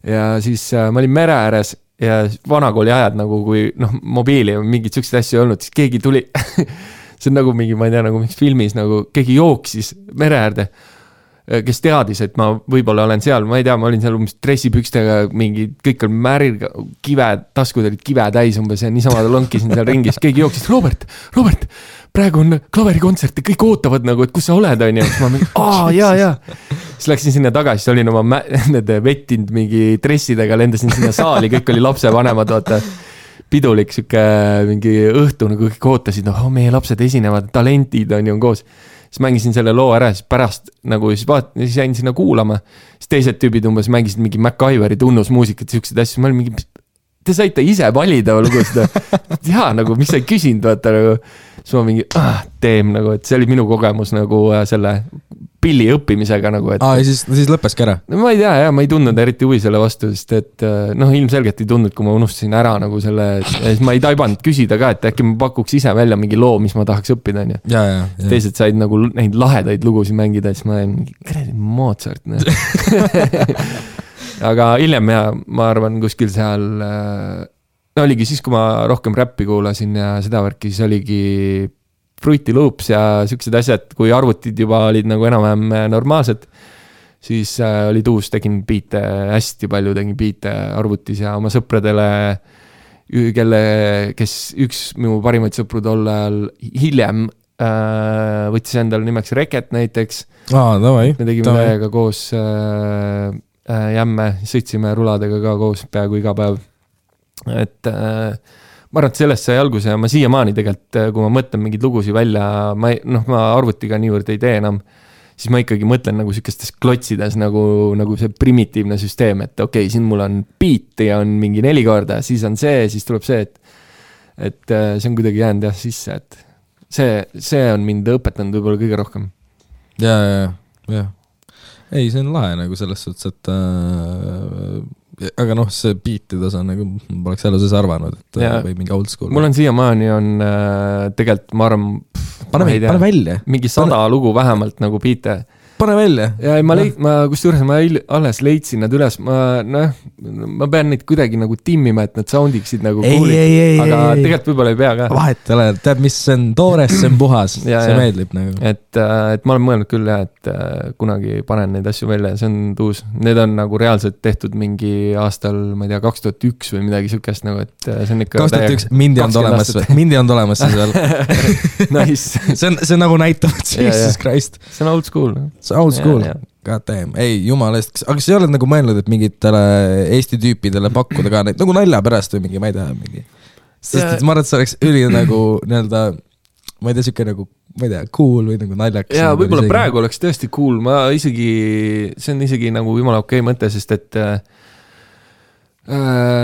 ja siis ma olin mere ääres ja vanakooli ajad nagu, kui mobiili ja mingid siuksed asju ei olnud, siis keegi tuli, see on nagu mingi, ma ei tea, nagu mingis filmis, nagu keegi jooksis mere äärde, kes teadis, et ma võib-olla olen seal, ma ei tea, ma olin seal umbes dressipükstega, mingi, kõik on märil, kive, taskud olid kive täis umbes ja niisama lonkisin seal ringis, keegi jooksis, Robert, praegu on klaverikontsert ja kõik ootavad nagu, et kus sa oled, on ja siis ma mingi, jaa. Siis läksin sinna tagasi, siis olin oma nende vettinud mingi dressidega, lendasin sinna saali, kõik oli lapsevanemad, vaata, pidulik siuke mingi õhtu, nagu kõik ootasid, meie lapsed esinevad, talentid on ju koos. Siis mängisin selle loo ära, siis pärast nagu siis jäin sinna kuulama, siis teised tüübid umbes mängisid mingi MacGyveri tunnusmuusikat, siuksed asju, ma olin mingi, te saite ise valida lugu seda, jaa, nagu mis sa ei küsinud, vaata nagu, siis ma mingi, nagu, et see oli minu kogemus nagu selle pilli õppimisega nagu, et... ja siis lõppeski ära? No ma ei tea, ma ei tundnud eriti huvi selle vastu, sest et ilmselgelt ei tundnud, kui ma unustasin ära nagu selle, siis ma ei taibanud küsida ka, et äkki ma pakuks ise välja mingi loo, mis ma tahaks õppida, on ju. Teised said nagu neid lahedaid lugusid mängida, siis ma mingi, kredi Mozart, aga hiljem ja ma arvan kuskil seal oligi siis, kui ma rohkem räppi kuulasin ja seda värki, siis oligi Fruity Loops ja siuksed asjad, kui arvutid juba olid nagu enam-vähem normaalsed, siis olid uus, tegin biite, hästi palju tegin biite arvutis ja oma sõpradele, kes üks minu parimaid sõpru tol ajal hiljem võttis endale nimeks Reket näiteks. Me tegime täiega koos jämme, sõitsime ruladega ka koos peaaegu iga päev. Et ma arvan, et sellest sai alguse ja ma siiamaani tegelikult, kui ma mõtlen mingid lugusid välja, ma arvutiga niivõrd ei tee enam, siis ma ikkagi mõtlen nagu sükestes klotsides nagu see primitiivne süsteem, et okei, siin mul on beat ja on mingi 4 korda, siis on see, siis tuleb see, et see on kuidagi jäänud jah sisse, et see on mind õpetanud võib-olla kõige rohkem. Ja jah. Ei, see on lahe nagu selles suhtes, et aga noh, see beat'i tasa nagu poleks elu sees arvanud, et või mingi old school. Mul on siiamaani on tegelikult, ma arvan, pane välja. Mingi 100 lugu vähemalt nagu beat'e. Pane välja. Ja ma kusjuures ma alles leidsin nad üles, ma pean neid kuidagi nagu timmima, et nad soundiksid nagu ei, aga tegelikult võib-olla ei pea ka. Vahet ole, tead, mis see on toores, see on puhas, see meeldib nagu. Et ma olen mõelnud küll jah, et kunagi panen neid asju välja, see on tuus. Need on nagu reaalselt tehtud mingi aastal, ma ei tea, 2001 või midagi sükest nagu, et see on ikka 2001, mindi on olemas seal. Nice. See on nagu näitavad Jesus Christ. See on old school. Old school, god damn, ei jumala eest, aga sa ei ole nagu mõelnud, et mingitele Eesti tüüpidele pakkuda ka neid nagu nalja pärast või mingi, ma ei tea, mingi sest et ma arvan, et see oleks üli nagu nii-öelda, ma ei tea, siuke nagu, ma ei tea, cool või nagu naljaks. Ja võib-olla praegu oleks tõesti cool, see on isegi nagu jumala okei mõte, sest et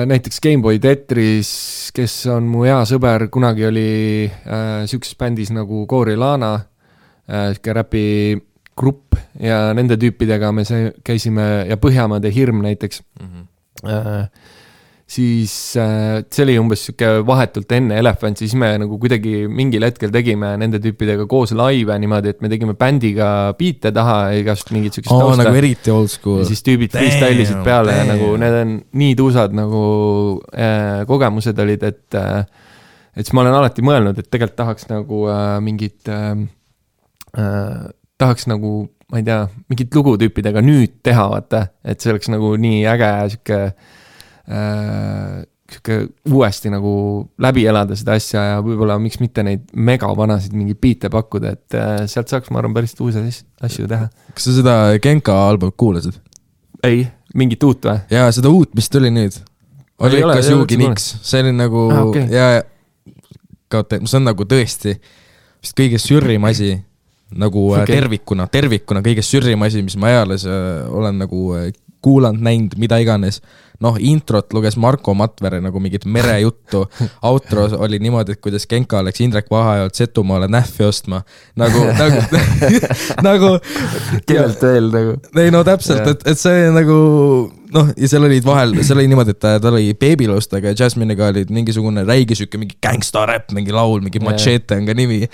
näiteks Gameboy Tetris, kes on mu hea sõber, kunagi oli siukses bändis nagu Gorilana, siuke räpi grupp ja nende tüüpidega me käisime ja Põhjamaade Hirm näiteks. Siis see oli umbes siuke vahetult enne Elephant, siis me nagu kuidagi mingil hetkel tegime nende tüüpidega koos laive niimoodi, et me tegime bändiga beat'e taha igast mingit siukest tausta. Nagu eriti old school. Ja siis tüübid freestylisid peale ja nagu need on nii tuusad nagu kogemused olid, et siis ma olen alati mõelnud, et tegelikult tahaks nagu mingit tahaks nagu, ma ei tea, mingit lugutüüpidega nüüd teha, vaata, et see oleks nagu nii äge siuke uuesti nagu läbi elada seda asja ja võib-olla miks mitte neid mega vanasid mingi beat'e pakkuda, et sealt saaks, ma arvan, päris uusi asju teha. Kas sa seda Genka albumit kuulasid? Ei, mingit uut või? Jaa, seda uut, mis tuli nüüd. Oli ikka Sugi Niks. See oli nagu, see on nagu tõesti vist kõige sürrim asi nagu tervikuna kõige sürrim asi, mis ma eales olen nagu kuulanud, näinud, mida iganes. Noh, introt luges Marko Matvere nagu mingit merejuttu. Outro oli niimoodi, et kuidas Genka oleks Indrek Vahajalt Setumaale nähvi ostma. Nagu kellelt veel nagu. Ei, no täpselt, et see nagu noh, ja seal olid vahel, seal oli niimoodi, et ta oli Babylostega ja Jasmine'iga olid mingisugune räige süke, mingi gangsta rap, mingi laul, mingi Machete on ka nimi.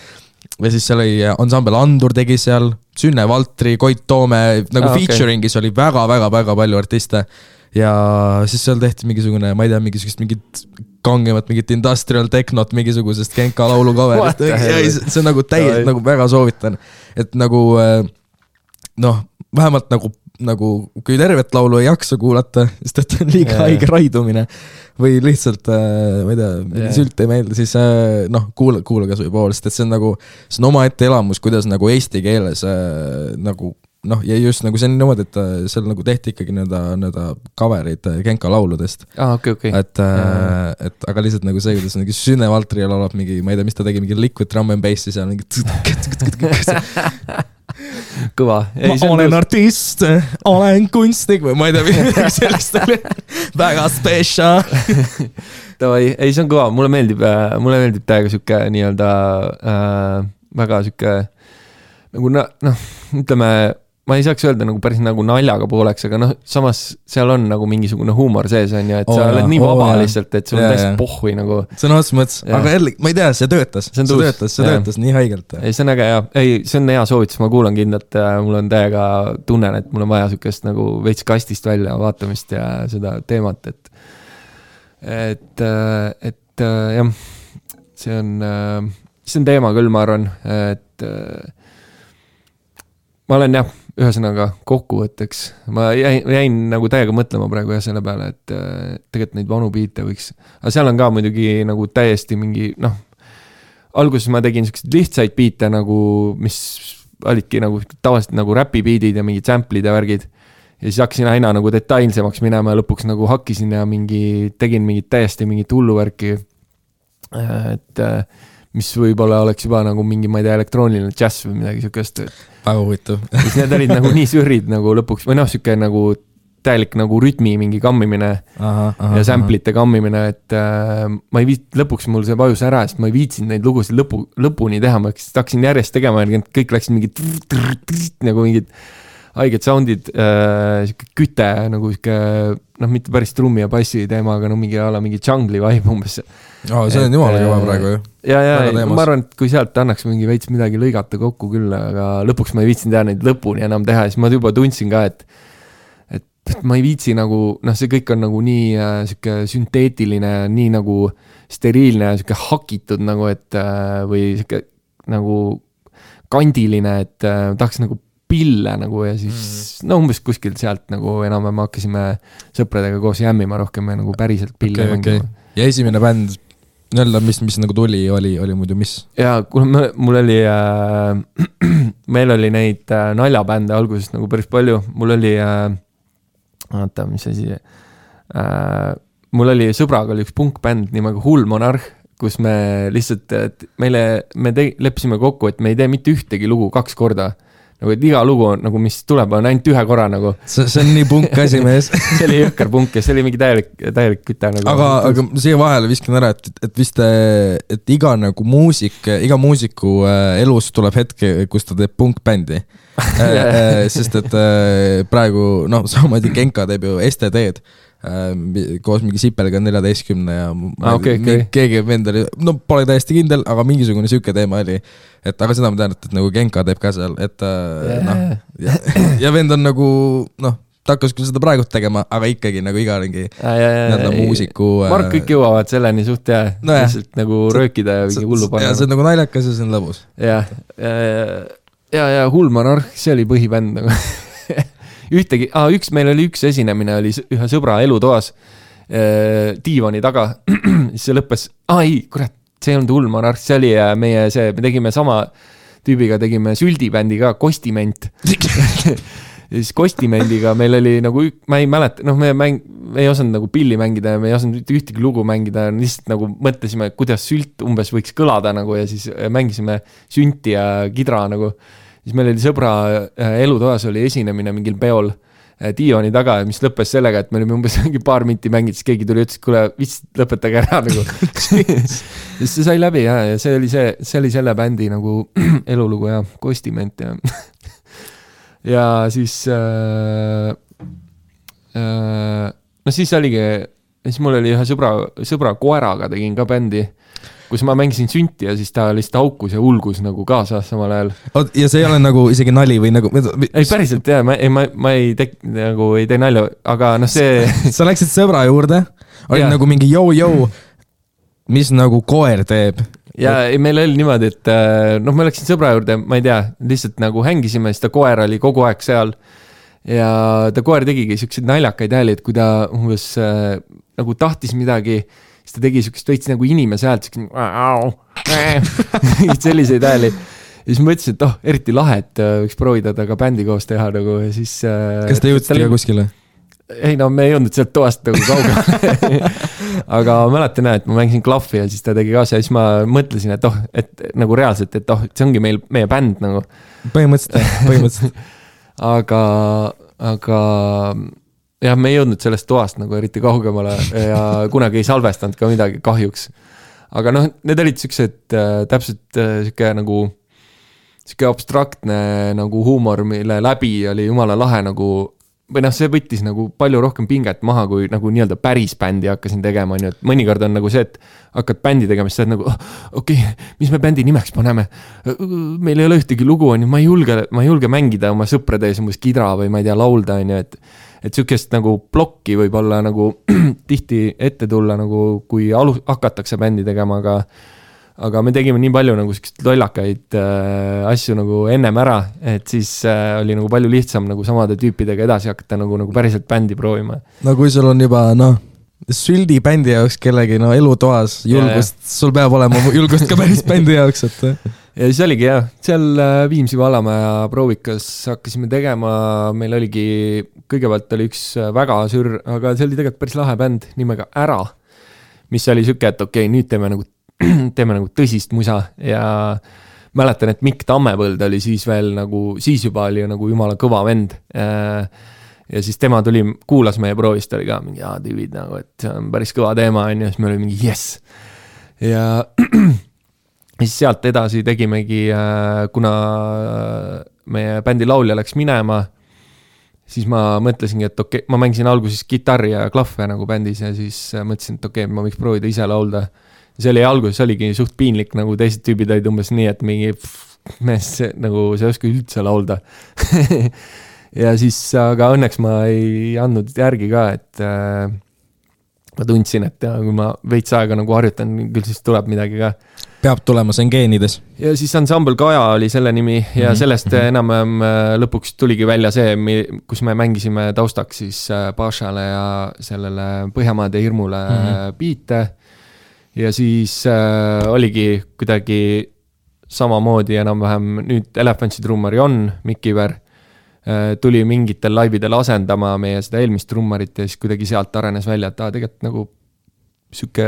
Ja siis seal oli Ensemble Andur tegi seal, Sünne Valtri, Koit Toome, nagu featuringis oli väga palju artiste. Ja siis seal tehti mingisugune, ma ei tea, mingit kangemat, mingit industrial technot, mingisugusest Genka laulu coverist. See on nagu täiesti, nagu väga soovitan. Et nagu, noh, vähemalt nagu kui tervet laulu ei jaksa kuulata, sest et on liiga haige raidumine või lihtsalt, ma ei tea, sült ei meeldi, siis noh, kuula kas või pool, sest et see on oma ette elamus, kuidas nagu eesti keeles nagu noh, ja just nagu see on niimoodi, et seal nagu tehti ikkagi nõnda coverid Genka lauludest. Okay. Et aga lihtsalt nagu see, kuidas mingi Sünne Valtri laulab mingi, ma ei tea, mis ta tegi, mingi liquid drum and bassi seal mingi kõva. Ma olen artist, olen kunstnik või ma ei tea, midagi sellist oli väga special. Ei, see on kõva, mulle meeldib täiega siuke nii-öelda väga siuke nagu noh, ütleme, ma ei saaks öelda nagu päris nagu naljaga pooleks, aga noh, samas seal on nagu mingisugune huumor sees on ju, et sa oled nii vaba lihtsalt, et sul on täiesti pohhui nagu. See on otsa mõttes, aga jälle, ma ei tea, see töötas nii haigelt. Ei, see on äge, jah. Ei, see on hea soovitus, ma kuulan kindlalt, mul on täiega tunnen, et mul on vaja sükest nagu veits kastist välja vaatamist ja seda teemat, et jah, see on teema küll, ma arvan, et ma olen jah, ühesõnaga kokkuvõtteks, ma jäin nagu täiega mõtlema praegu jah selle peale, et tegelikult neid vanu biite võiks, aga seal on ka muidugi nagu täiesti mingi, noh, alguses ma tegin sellised lihtsaid biite nagu, mis olidki nagu tavaliselt nagu räpi biidid ja mingid samplid ja värgid ja siis hakkasin aina nagu detailsemaks minema ja lõpuks nagu hakkisin ja tegin mingit täiesti mingit hulluvärki, et mis võib-olla oleks juba nagu mingi, ma ei tea, elektrooniline jazz või midagi siukest. Väga huvitav. Siis need olid nagu nii sürrid nagu lõpuks, või noh, siuke nagu täielik nagu rütmi mingi kammimine ja samplite kammimine, et ma ei lõpuks mul see vajus ära, sest ma ei viitsinud neid lugusid lõpuni teha, ma hakkasin järjest tegema ja kõik läksid mingid nagu mingid haiged soundid, küte nagu mitte päris trummi ja bassi teema, aga mingi jungli vibe umbes. See on jumala kõva praegu ju. Ja, ma arvan, et kui sealt annaks mingi veits midagi lõigata kokku küll, aga lõpuks ma ei viitsinud teha neid lõpuni enam teha, siis ma juba tundsin ka, et ma ei viitsi nagu, see kõik on nagu nii siuke sünteetiline, nii nagu steriilne, siuke hakitud nagu, et või siuke nagu kandiline, et tahaks nagu pille nagu ja siis umbes kuskilt sealt nagu enam-vähem hakkasime sõpradega koos jämmima rohkem ja nagu päriselt pille mängima. Ja esimene bänd, mis nagu tuli, oli muidu mis? Ja mul oli, meil oli neid naljabände alguses nagu päris palju, mul oli mis asi, mul oli sõbraga oli üks punkbänd nimega Hull Monarh, kus me lihtsalt, me leppisime kokku, et me ei tee mitte ühtegi lugu 2 korda. Nagu, et iga lugu on, nagu, mis tuleb, on ainult 1 korra nagu. See on nii punk asi mees. See oli jõkkar punk ja see oli mingi täielik küte nagu. Aga siia vahele viskan ära, et vist, et iga muusiku elus tuleb hetke, kus ta teeb punkbändi. Sest et praegu, samamoodi Genka teeb ju STD-d koos mingi Sipelga 14 ja keegi vendali, pole täiesti kindel, aga mingisugune süke teema oli, et aga seda ma tean, et nagu Genka teeb ka seal, et ja vend on nagu, ta hakkas küll seda praegu tegema, aga ikkagi nagu iga mingi muusiku ma arvan, kõik jõuavad selleni suht ja lihtsalt nagu röökida ja mingi hullu panna. Ja see on nagu naljakas ja see on lõbus. Ja Hull Monarh, see oli põhibänd nagu meil oli üks esinemine, oli ühe sõbra elutoas diivani taga, siis see lõppes, kurat, see on Hull Monarh, see oli me tegime sama tüübiga, tegime süldibändi ka, Kostiment. Ja siis Kostimendiga meil oli nagu, ma ei mäleta, me ei osanud nagu pilli mängida ja me ei osanud ühtegi lugu mängida, lihtsalt nagu mõtlesime, kuidas sült umbes võiks kõlada nagu ja siis mängisime sünti ja kidra nagu. Siis meil oli sõbra elutoas oli esinemine mingil peol diivani taga, mis lõppes sellega, et me olime umbes mingi paar minti mängid, siis keegi tuli ütles, kuule, vist lõpetage ära nagu. Siis see sai läbi ja see oli selle bändi nagu elulugu ja Kostiment ja ja siis siis oligi, siis mul oli ühe sõbra koeraga tegin ka bändi, kus ma mängisin sünti ja siis ta lihtsalt haukus ja ulgus nagu kaasa samal ajal. Ja see ei ole nagu isegi nali või nagu... Ei päriselt jah, ma ei tee nalja, aga see... Sa läksid sõbra juurde, oli nagu mingi jõu, mis nagu koer teeb. Ja meil oli niimoodi, et ma läksin sõbra juurde, ma ei tea, lihtsalt nagu hängisime, siis ta koer oli kogu aeg seal ja ta koer tegigi siukseid naljakaid hääli, et kui ta umbes nagu tahtis midagi, siis ta tegi siukest veits nagu inimese häält, selliseid hääli. Ja siis ma ütlesin, et eriti lahe, et võiks proovida taga bändi koos teha nagu ja siis... Kas te jõudsite ka kuskile? Ei, me ei jõudnud sealt toast nagu kaugele. Aga mäletan, et ma mängisin klahvi ja siis ta tegi kaasa ja siis ma mõtlesin, et nagu reaalselt, et see ongi meie bänd nagu. Põhimõtteliselt. Aga jah, me ei jõudnud sellest toast nagu eriti kaugemale ja kunagi ei salvestanud ka midagi kahjuks. Aga need olid siuksed täpselt siuke nagu siuke abstraktne nagu huumor, mille läbi oli jumala lahe nagu või see võttis nagu palju rohkem pinget maha, kui nagu nii-öelda päris bändi hakkasin tegema, nii et mõnikord on nagu see, et hakkad bändi tegema, siis sa oled nagu, okei, mis me bändi nimeks paneme? Meil ei ole ühtegi lugu, ma ei julge mängida oma sõprade ees umbes kidra või ma ei tea, laulda, et sükest nagu plokki võib olla nagu tihti ette tulla, nagu kui hakatakse bändi tegema, aga me tegime nii palju nagu sellised lollakaid asju nagu ennem ära, et siis oli nagu palju lihtsam nagu samade tüüpidega edasi hakata nagu päriselt bändi proovima. No kui sul on juba, süldi bändi jaoks kellegi elutoas julgust, sul peab olema julgust ka päris bändi jaoks, et... Ja siis oligi jah, seal Viimsi Valamäe proovikas hakkasime tegema, meil oligi, kõigepealt oli üks väga sür, aga see oli tegelikult päris lahe bänd nimega Ära, mis oli süke, et okei, nüüd teeme nagu tõsist musa ja mäletan, et Mikk Tammepõld oli siis veel nagu, siis juba oli nagu jumala kõva vend ja siis tema tuli, kuulas meie proovist, oli ka mingi, tüübid nagu, et see on päris kõva teema, on ju, siis me olime mingi yes. Ja siis sealt edasi tegimegi, kuna meie bändi laulja läks minema, siis ma mõtlesingi, et okei, ma mängisin alguses kitarri ja klahve nagu bändis ja siis mõtlesin, et okei, ma võiks proovida ise laulda. See oli alguses oligi suht piinlik, nagu teised tüübid olid umbes nii, et mingi mees, nagu see oska üldse laulda. Ja siis, aga õnneks ma ei andnud järgi ka, et ma tundsin, et kui ma veits aega nagu harjutan, küll siis tuleb midagi ka. Peab tulema, see on geenides. Ja siis Ensemble Kaja oli selle nimi ja sellest enam lõpuks tuligi välja see, kus me mängisime taustaks siis Pašale ja sellele Põhjamaade hirmule biite. Ja siis oligi kuidagi samamoodi enam-vähem nüüd Elephantsi trummari on Mikiver. Tuli mingitel laividel asendama meie seda eelmist trummarit ja siis kuidagi sealt arenes välja, et tegelikult nagu süke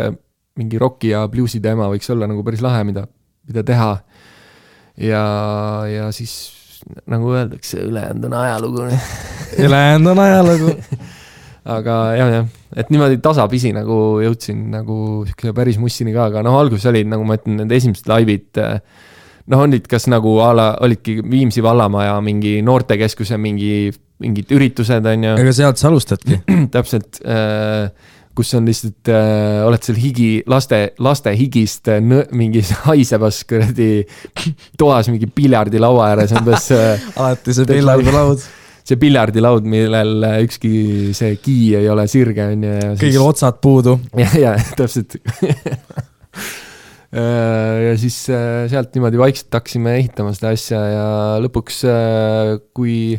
mingi rocki ja bluesi teema võiks olla nagu päris lahe, mida teha. Ja siis nagu öeldakse, ülejäänud on ajalugu. Ülejäänud on ajalugu. Aga jah, et niimoodi tasapisi nagu jõudsin nagu päris mussini ka, aga alguses olid, nagu ma ütlen, need esimesed laivid, olid kas nagu olidki Viimsi vallamaja mingi noortekeskuse mingid üritused, on ju. Ega sealt sa alustadki. Täpselt, kus on lihtsalt, oled seal laste higist mingi haisebas toas mingi piljardilaua ääres. Alati see piljardilaud. See piljardilaud, millel ükski see kii ei ole sirge. Kõigil otsad puudu. Ja täpselt. Ja siis sealt niimoodi vaikselt hakkasime ehitama seda asja ja lõpuks, kui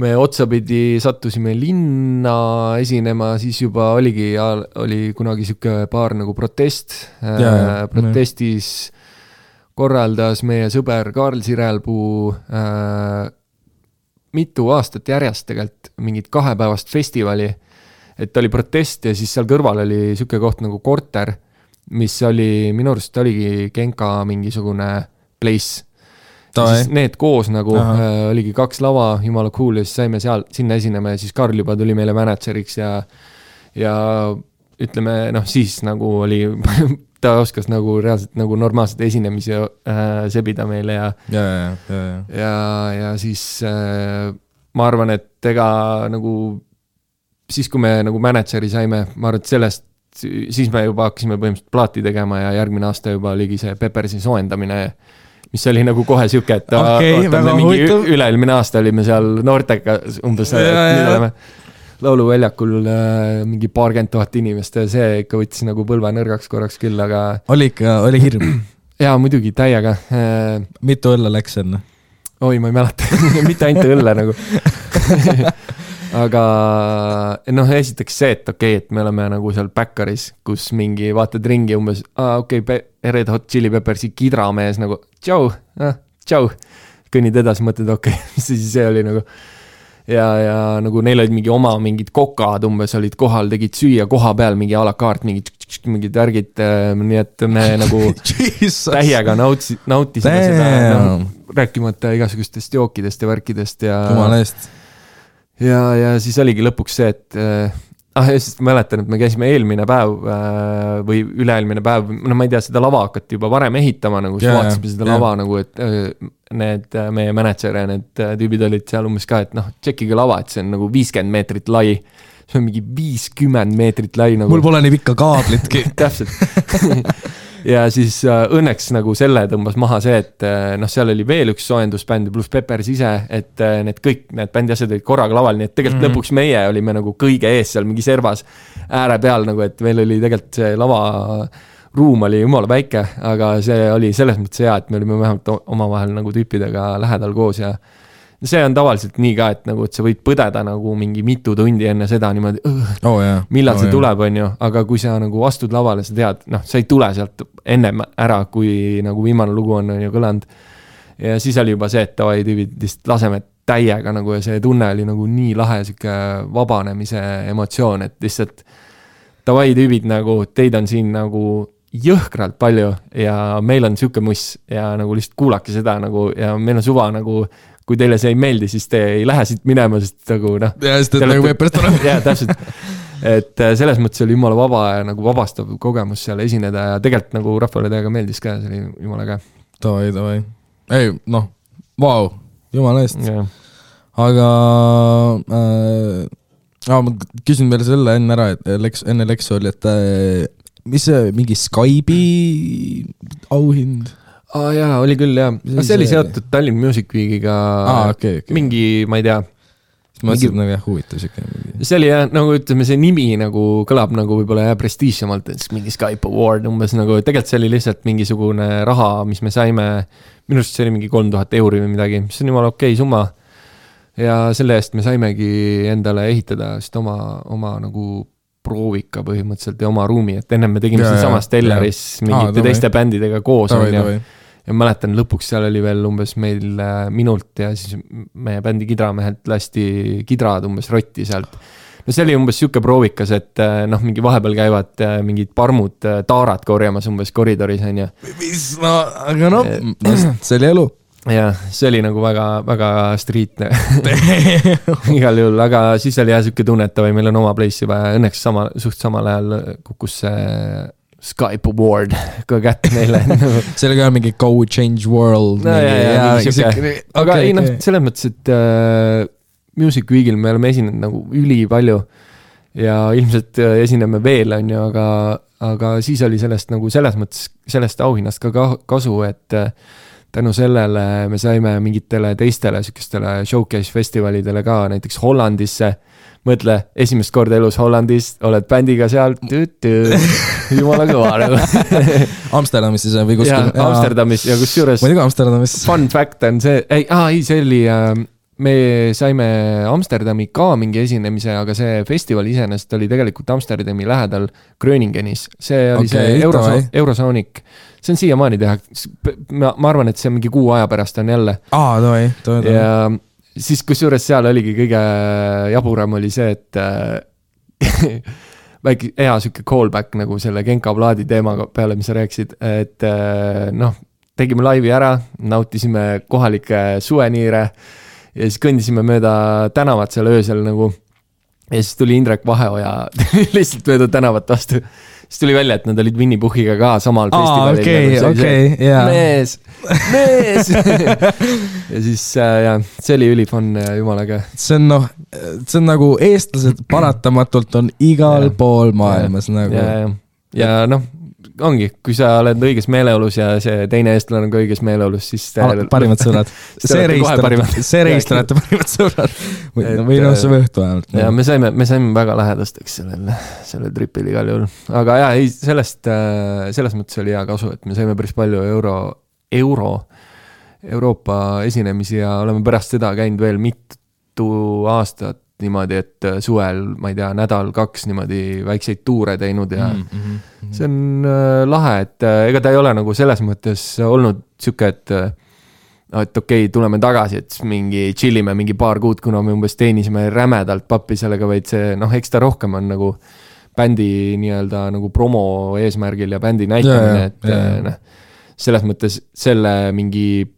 me otsapidi sattusime linna esinema, siis juba oli kunagi siuke paar nagu protest. Protestis korraldas meie sõber Karl Sirelpuu mitu aastat järjest tegelikult mingit 2-päevast festivali, et oli protest ja siis seal kõrval oli siuke koht nagu Korter, mis oli, minu arust oligi Genka mingisugune place. Siis need koos nagu oligi 2 lava, jumala cool ja siis saime sinna esinema ja siis Karl juba tuli meile manatseriks ja ütleme, siis nagu oli, ta oskas nagu reaalselt nagu normaalselt esinemisi sebida meile ja siis ma arvan, et ega nagu siis, kui me nagu manatseri saime, ma arvan, et sellest siis me juba hakkasime põhimõtteliselt plaati tegema ja järgmine aasta juba oligi see Peppersi soojendamine, mis oli nagu kohe siuke, et mingi üleilmine aasta olime seal noortega umbes, nüüd oleme lauluväljakul mingi 40 000 inimest ja see ikka võttis nagu põlve nõrgaks korraks küll, aga oli hirm? Jaa, muidugi, täiega. Mitu õlle läks enne? Oi, ma ei mäleta, mitte ainult õlle nagu. Aga esiteks see, et okei, et me oleme nagu seal Backeris, kus mingi vaatad ringi umbes, Red Hot Chili Peppersi kidramees nagu tšau, kõnnid edasi, mõtled okei, see oli nagu ja nagu neil olid mingi oma mingid kokad umbes olid kohal, tegid süüa koha peal mingi a la carte, mingid värgid, nii et me nagu täiega nautisime seda, rääkimata igasugustest jookidest ja värkidest ja siis oligi lõpuks see, et just mäletan, et me käisime eelmine päev või üleelmine päev, ma ei tea, seda lava hakati juba varem ehitama, nagu siis vaatasime seda lava nagu, et need meie manager ja need tüübid olid seal umbes ka, et tšekkige lava, et see on nagu 50 meetrit lai, see on mingi 50 meetrit lai nagu. Mul pole nii pikka kaablitki. Täpselt. Ja siis õnneks nagu selle tõmbas maha see, et seal oli veel üks soojendusbänd pluss Peppers ise, et kõik need bändi asjad olid korraga laval, nii et tegelikult lõpuks meie olime nagu kõige ees seal mingi servas ääre peal, nagu et meil oli tegelikult see lava ruum oli jumala väike, aga see oli selles mõttes hea, et me olime vähemalt omavahel nagu tüüpidega lähedal koos ja see on tavaliselt nii ka, et nagu, et sa võid põdeda nagu mingi mitu tundi enne seda niimoodi, millal see tuleb, on ju, aga kui sa nagu astud lavale, sa tead, sa ei tule sealt ennem ära, kui nagu viimane lugu on ju kõlanud. Ja siis oli juba see, et tavai tüübid lihtsalt laseme täiega nagu ja see tunne oli nagu nii lahe siuke vabanemise emotsioon, et lihtsalt tavai tüübid nagu, teid on siin nagu jõhkralt palju ja meil on siuke muss ja nagu lihtsalt kuulake seda nagu ja meil on suva nagu kui teile see ei meeldi, siis te ei lähe siit minema, sest nagu noh. Ja, sest et nagu võib pärast olema. Jaa, täpselt. Et selles mõttes oli jumala vaba ja nagu vabastav kogemus seal esineda ja tegelikult nagu rahvale täiega meeldis ka, see oli jumala käe. Davai. Ei, noh, vau, jumala eest. Ja. Aga ma küsin veel selle enne ära, et enne Leksu oli, et mis see mingi Skype'i auhind? Jaa, oli küll, jah. See oli seotud Tallinn Music Weekiga okay. Mingi, ma ei tea. Ma mõtlesin, nagu jah, huvitav siuke. See oli jah, nagu ütleme, see nimi nagu kõlab nagu võib-olla jah prestiižsemalt, et mingi Skype Award umbes nagu, tegelikult see oli lihtsalt mingisugune raha, mis me saime, minu arust see oli mingi 3000 € või midagi, mis on jumala okei summa. Ja selle eest me saimegi endale ehitada sest oma nagu proovika põhimõtteliselt ja oma ruumi, et ennem me tegime siin samas Stellaris mingite teiste bändidega koos. Ja mäletan, lõpuks seal oli veel umbes meil minult ja siis meie bändi kidramehelt lasti kidrad umbes rotti sealt. No see oli umbes siuke proovikas, et noh, mingi vahepeal käivad mingid parmud taarad korjamas umbes koridoris, on ju. No, aga no, see oli elu. Ja see oli nagu väga, väga streetne igal juhul, aga siis oli jah siuke tunnetava, meil on oma place juba ja õnneks suht samal ajal kukkus see Skype Award ka kätte neile. See oli ka mingi Go Change World. Aga ei noh, selles mõttes, et Music Weekil me oleme esinenud nagu üli palju ja ilmselt esineme veel, on ju, aga siis oli sellest nagu selles mõttes, sellest auhinnast ka kasu, et tänu sellele me saime mingitele teistele sükestele showcase festivalidele ka, näiteks Hollandisse. Mõtle, esimest korda elus Hollandis, oled bändiga seal, jumala kõva nagu. Amsterdamis siis või kuskil? Ja, Amsterdamis ja kus juures. Ma ei tea Amsterdamis. Fun fact on see, see oli, me saime Amsterdami ka mingi esinemise, aga see festival iseenesest oli tegelikult Amsterdami lähedal Gröningenis. See oli see Eurosonic. See on siiamaani teha. Ma arvan, et see mingi 6 aja pärast on jälle. Davai. Ja siis kusjuures seal oligi kõige jaburam oli see, et väike hea süke callback nagu selle Genka Vladi teema peale, mis sa rääksid, et noh, tegime laivi ära, nautisime kohalike suveniire ja siis kõndisime mööda tänavat seal öösel nagu ja siis tuli Indrek Vaheoja lihtsalt mööda tänavat vastu. Siis tuli välja, et nad olid Winnie Puhiga ka samal festivalil. Okei. Mees! Ja siis see oli ülifun jumalaga. See on nagu eestlased paratamatult on igal pool maailmas nagu. Ja noh, ongi, kui sa oled õiges meeleolus ja see teine eestlane on ka õiges meeleolus, siis parimad sõbrad. See reistajate parimad sõbrad. Või noh, see võhtu vähemalt. Ja me saime väga lähedasteks selle tripil igal juhul. Aga jah, selles mõttes oli hea kasu, et me saime päris palju Euroopa esinemisi ja oleme pärast seda käinud veel mitu aastat niimoodi, et suvel, ma ei tea, 1-2 niimoodi väikseid tuure teinud ja see on lahe, et ega ta ei ole nagu selles mõttes olnud siuke, et okei, tuleme tagasi, et mingi chillime mingi paar kuud, kuna me umbes teenisime rämedalt pappi sellega, vaid see, noh, eks ta rohkem on nagu bändi nii-öelda nagu promo eesmärgil ja bändi näitamine, et selles mõttes selle mingi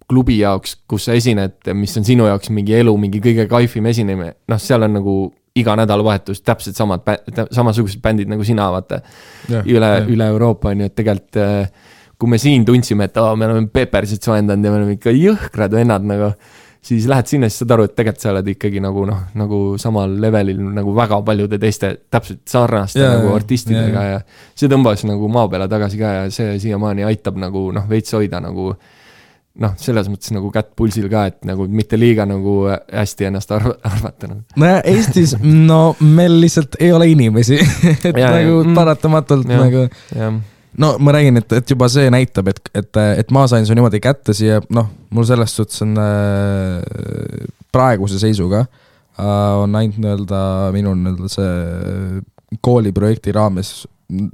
klubi jaoks, kus sa esined, mis on sinu jaoks mingi elu, mingi kõige kaifim esinemine, noh, seal on nagu iga nädalavahetus täpselt samasugused bändid nagu sina, vaata, üle Euroopa on ju, et tegelikult kui me siin tundsime, et me oleme Peppersit soendanud ja me oleme ikka jõhkrad vennad nagu, siis lähed sinna, siis saad aru, et tegelikult sa oled ikkagi nagu samal levelil nagu väga paljude teiste täpselt sarnaste nagu artistidega ja see tõmbas nagu maa peale tagasi ka ja see siiamaani aitab nagu veits hoida nagu noh, selles mõttes nagu kätt pulsil ka, et nagu mitte liiga nagu hästi ennast arvata. No Eestis, meil lihtsalt ei ole inimesi, et nagu paratamatult nagu, no ma räägin, et juba see näitab, et ma sain su niimoodi kätte siia, noh, mul sellest suhtes on praeguse seisuga on ainult nii-öelda minul see kooliprojekti raames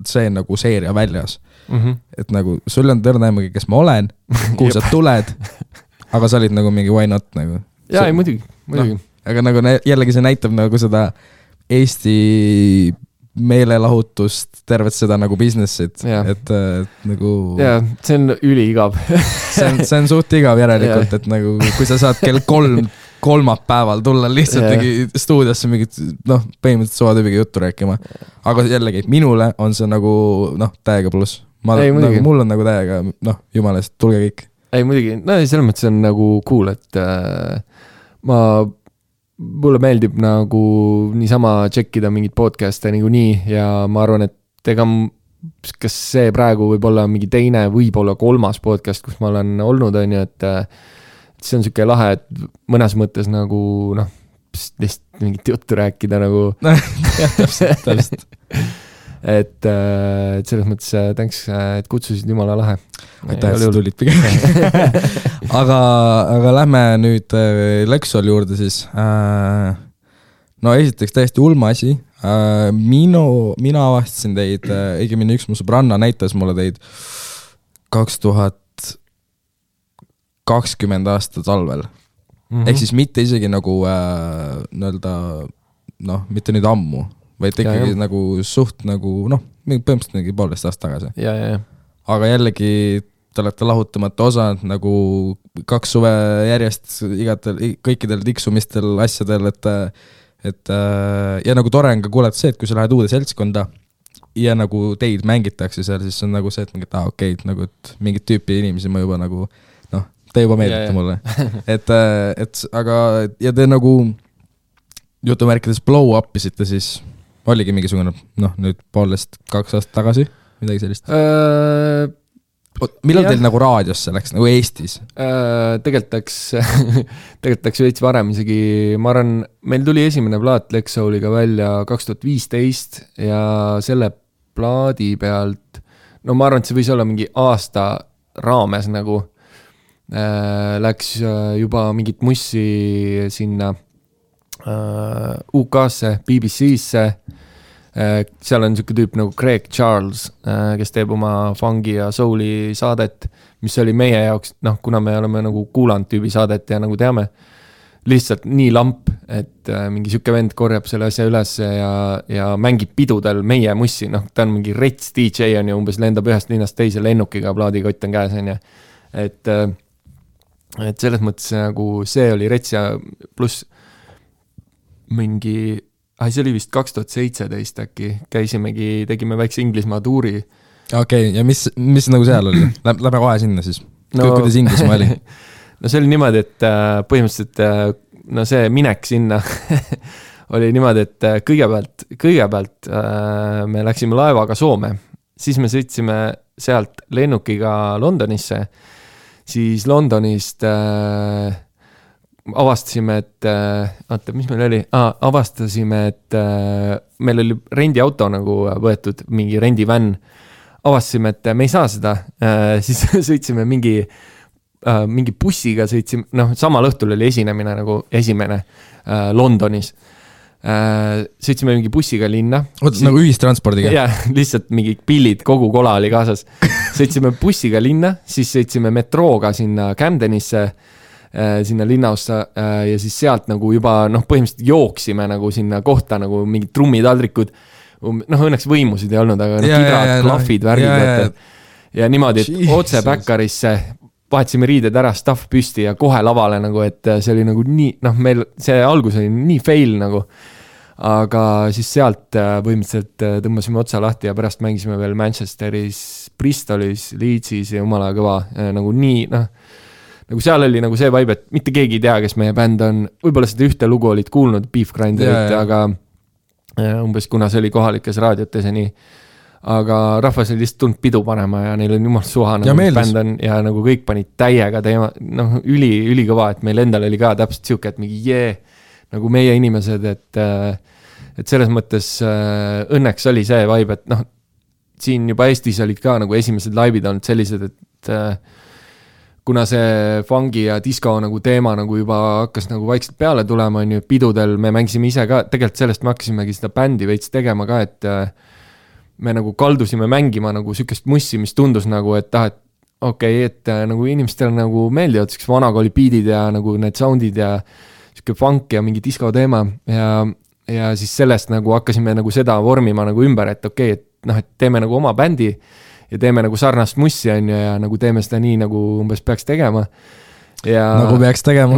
see nagu seeria väljas. Et nagu sul on tõrnäimagi, kes ma olen, kuhu sa tuled, aga sa olid nagu mingi why not nagu. Jaa, ei muidugi. Aga nagu jällegi see näitab nagu seda Eesti meelelahutust, tervet seda nagu business'it, et nagu... Jaa, see on üliigav. see on suht igav järelikult, et nagu kui sa saad kell 3 kolmapäeval tulla lihtsalt stuudiosse mingit, põhimõtteliselt suvatüübiga juttu rääkima. Aga jällegi, minule on see nagu, täiega pluss. Nagu, mul on nagu täiega, jumalast, tulge kõik. Ei, muidugi, selles mõttes on nagu cool, et mulle meeldib nagu niisama tšekkida mingit podcast'e nagu nii ja ma arvan, et ega kas see praegu võib olla mingi teine, võib-olla 3. podcast, kus ma olen olnud, on ju, et see on siuke lahe, et mõnes mõttes nagu, lihtsalt mingit juttu rääkida nagu. täpselt. et selles mõttes thanks, et kutsusid, jumala lahe. Aitäh, et tulid pigem. aga lähme nüüd Lexol juurde siis. No esiteks täiesti ulma asi. Mina avastasin teid, õigemini üks mu sõbranna näitas mulle teid 2020 aasta talvel. Ehk siis mitte isegi nagu mitte nüüd ammu, vaid ikkagi nagu suht nagu, põhimõtteliselt mingi 1,5 aasta tagasi. Ja. Aga jällegi te olete lahutamata osa nagu 2 suve järjest kõikidel tiksumistel asjadel, et ja nagu tore on ka kuulata see, et kui sa lähed uude seltskonda ja nagu teid mängitakse seal, siis on nagu see, et mingit okei, nagu et mingit tüüpi inimesi ma juba nagu, te juba meeldite mulle. et aga, ja te nagu jutumärkides blow up isite, siis oligi mingisugune, nüüd 1,5-2 aastat tagasi, midagi sellist. Millal teil nagu raadiosse läks, nagu Eestis? Tegelikult läks veits varem isegi, ma arvan, meil tuli esimene plaat Lexoliga välja 2015 ja selle plaadi pealt, ma arvan, et see võis olla mingi aasta raames nagu, läks juba mingit mussi sinna UK-sse, BBC-sse, seal on siuke tüüp nagu Craig Charles, kes teeb oma fungi ja souli saadet, mis oli meie jaoks, kuna me oleme nagu kuulanud tüübi saadet ja nagu teame, lihtsalt nii lamp, et mingi siuke vend korjab selle asja üles ja mängib pidudel meie mussi, ta on mingi rets DJ on ju, umbes lendab ühest linnast teise lennukiga, plaadikott on käes on ju, et selles mõttes nagu see oli rets ja pluss mingi, see oli vist 2017 äkki, käisimegi, tegime väikse Inglismaa tuuri. Okei, ja mis nagu seal oli? Lähme kohe sinna siis. Kuidas Inglismaa oli? No see oli niimoodi, et põhimõtteliselt see minek sinna oli niimoodi, et kõigepealt me läksime laevaga Soome, siis me sõitsime sealt lennukiga Londonisse, siis Londonist avastasime, et mis meil oli? Avastasime, et meil oli rendiauto nagu võetud, mingi rendivänn. Avastasime, et me ei saa seda. Siis sõitsime mingi bussiga, sõitsime, samal õhtul oli esinemine nagu esimene Londonis. Sõitsime mingi bussiga linna. Nagu ühistranspordiga? Jah, lihtsalt mingi pillid, kogu kola oli kaasas. Sõitsime bussiga linna, siis sõitsime metrooga sinna Camdenisse, sinna linnaossa ja siis sealt nagu juba põhimõtteliselt jooksime nagu sinna kohta nagu mingid trummitaldrikud, õnneks võimusid ei olnud, aga kidrad, klahvid, värgid ja niimoodi, et otse Baccarisse vahetasime riided ära, staff püsti ja kohe lavale nagu, et see oli nagu nii, meil see algus oli nii fail nagu, aga siis sealt põhimõtteliselt tõmbasime otsa lahti ja pärast mängisime veel Manchesteris, Bristolis, Leedsis ja jumala kõva nagu nii, nagu seal oli nagu see vibe, et mitte keegi ei tea, kes meie bänd on, võib-olla seda ühte lugu olid kuulnud, Beef Grinderit, aga umbes kuna see oli kohalikes raadiotes ja nii, aga rahvas oli lihtsalt tulnud pidu panema ja neil on jumal suha nagu bänd on ja nagu kõik panid täiega teema, ülikõva, et meil endal oli ka täpselt siuke, et mingi nagu meie inimesed, et selles mõttes õnneks oli see vibe, et siin juba Eestis olid ka nagu esimesed laivid olnud sellised, et kuna see fungi ja disco nagu teema nagu juba hakkas nagu vaikselt peale tulema, on ju, pidudel me mängisime ise ka, tegelikult sellest me hakkasimegi seda bändi veits tegema ka, et me nagu kaldusime mängima nagu sükest mussi, mis tundus nagu, et et nagu inimestel nagu meeldivad siukest vanakooli beatid ja nagu need soundid ja siuke funk ja mingi disco teema ja ja siis sellest nagu hakkasime nagu seda vormima nagu ümber, et okei, et noh, et teeme nagu oma bändi ja teeme nagu sarnast mussi, on ju, ja nagu teeme seda nii, nagu umbes peaks tegema. Ja nagu peaks tegema.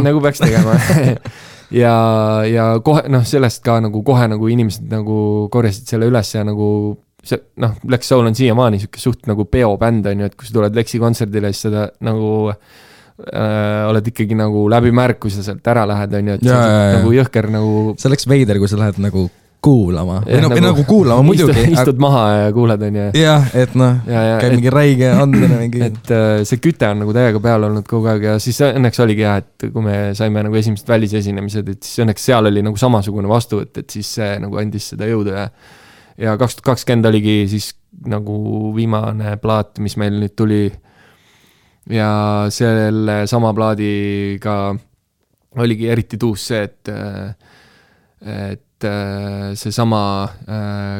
ja kohe, noh, sellest ka nagu kohe nagu inimesed nagu korjasid selle üles ja nagu see, noh, Lex Soul on siiamaani siuke suht nagu peobänd, on ju, et kui sa tuled Lexi kontserdile, siis seda nagu oled ikkagi nagu läbi märk, kui sa sealt ära lähed, on ju, et nagu jõhker nagu see oleks veider, kui sa lähed nagu kuulama või nagu kuulama muidugi istud maha ja kuuled, on ju. Jah, et noh, käib mingi räige andmine mingi. Et see küte on nagu täiega peal olnud kogu aeg ja siis õnneks oligi jah, et kui me saime nagu esimesed välisesinemised, et siis õnneks seal oli nagu samasugune vastuvõtt, et siis see nagu andis seda jõudu ja 2020 oligi siis nagu viimane plaat, mis meil nüüd tuli. Ja selle sama plaadiga oligi eriti tuus see, et see sama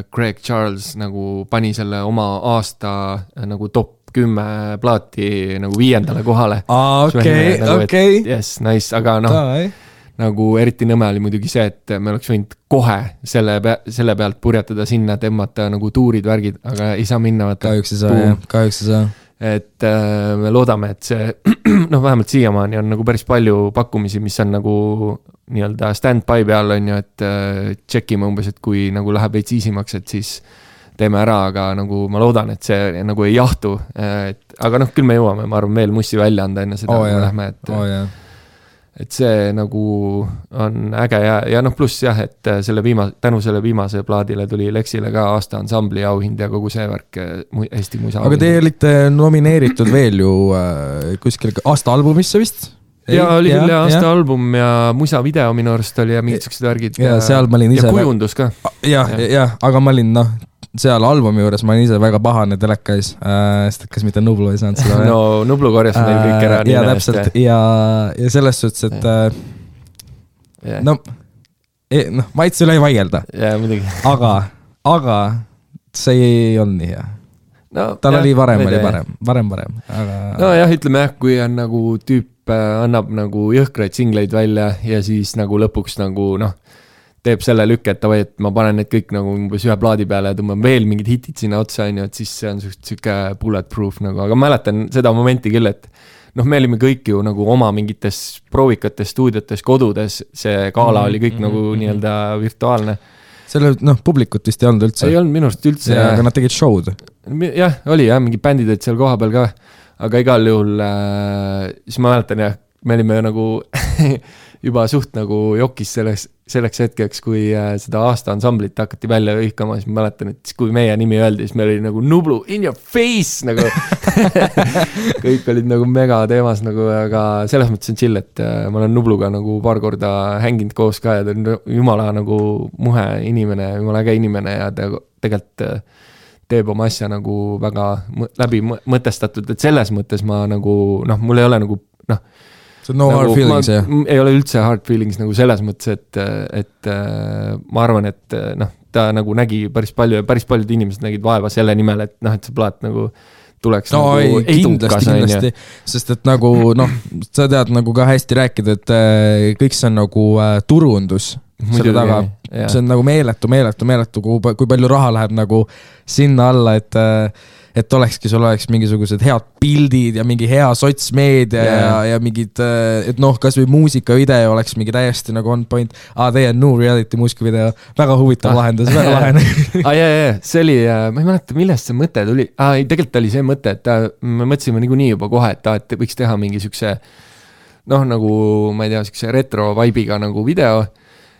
Greg Charles nagu pani selle oma aasta nagu top 10 plaati nagu 5. kohale. Okei. Yes, nice, aga noh, nagu eriti nõme oli muidugi see, et me oleks võinud kohe selle pealt purjatada sinna, tõmmata nagu tuurid, värgid, aga ei saa minna. Kahjuks ei saa. Et me loodame, et see, noh, vähemalt siiamaani on nagu päris palju pakkumisi, mis on nagu nii-öelda stand-by peal, on ju, et tšekime umbes, et kui nagu läheb veits iisimaks, et siis teeme ära, aga nagu ma loodan, et see nagu ei jahtu, aga noh, küll me jõuame, ma arvan, veel mussi välja anda enne seda, kui lähme, et see nagu on äge ja noh, pluss jah, et tänu selle viimase plaadile tuli Lexile ka aasta ansambli auhind ja kogu see värk Eesti musa. Aga te olite nomineeritud veel ju kuskil aasta albumisse vist? Ja oli küll aasta album ja musa video minu arust oli ja mingid sellised värgid ja seal ma olin ise ja kujundus ka. Ja, aga ma olin noh, seal albumi juures ma olin ise väga pahane telekais, sest kas mitte Nublu ei saanud seda. No Nublu korjas meil kõik ära. Ja täpselt, ja selles suhtes, et no, maitse üle ei vaielda. Ja muidugi. Aga see ei olnud nii hea. No, tal oli varem aga... No jah, ütleme jah, kui on nagu tüüp annab nagu jõhkraid singleid välja ja siis nagu lõpuks nagu noh, teeb selle lükke, et ma panen need kõik nagu umbes ühe plaadi peale ja tõmban veel mingid hitid sinna otsa, on ju, et siis see on siuke bulletproof nagu, aga mäletan seda momenti küll, et noh, me olime kõik ju nagu oma mingites proovikates, stuudiotes, kodudes, see gala oli kõik nagu nii-öelda virtuaalne. Selle, noh, publikut vist ei olnud üldse. Ei olnud minu arust üldse. Aga nad tegid show'd. Jah, oli jah, mingi bändid olid seal koha peal ka, aga igal juhul, siis ma mäletan jah, me olime nagu juba suht nagu jokis selleks hetkeks, kui seda aasta ansamblit hakati välja hõikama, siis ma mäletan, et kui meie nimi öeldi, siis meil oli nagu Nublu in your face nagu kõik olid nagu mega teemas nagu, aga selles mõttes on chill, et ma olen Nubluga nagu paar korda hänginud koos ka ja ta on jumala nagu muhe inimene, jumala äge inimene ja ta tegelikult teeb oma asja nagu väga läbi mõtestatud, et selles mõttes ma nagu, noh, mul ei ole nagu, noh, no nagu, hard feelings, jah? Ei ole üldse hard feelings nagu selles mõttes, et ma arvan, et noh, ta nagu nägi päris palju ja päris paljud inimesed nägid vaeva selle nimel, et noh, et see plaat nagu tuleks no, nagu kindlasti, sest et nagu noh, sa tead nagu ka hästi rääkida, et kõik see on nagu turundus selle taga, see on nagu meeletu, kui palju raha läheb nagu sinna alla, et olekski, sul oleks mingisugused head pildid ja mingi hea sotsmeedia ja mingid, et noh, kas või muusikavideo oleks mingi täiesti nagu on point, teie no reality muusikavideo, väga huvitav lahendus, väga lahene. See oli, ma ei mäleta, millest see mõte tuli, tegelikult oli see mõte, et me mõtlesime niikuinii juba kohe, et võiks teha mingi siukse, noh, nagu, ma ei tea, siukse retro vibe'iga nagu video.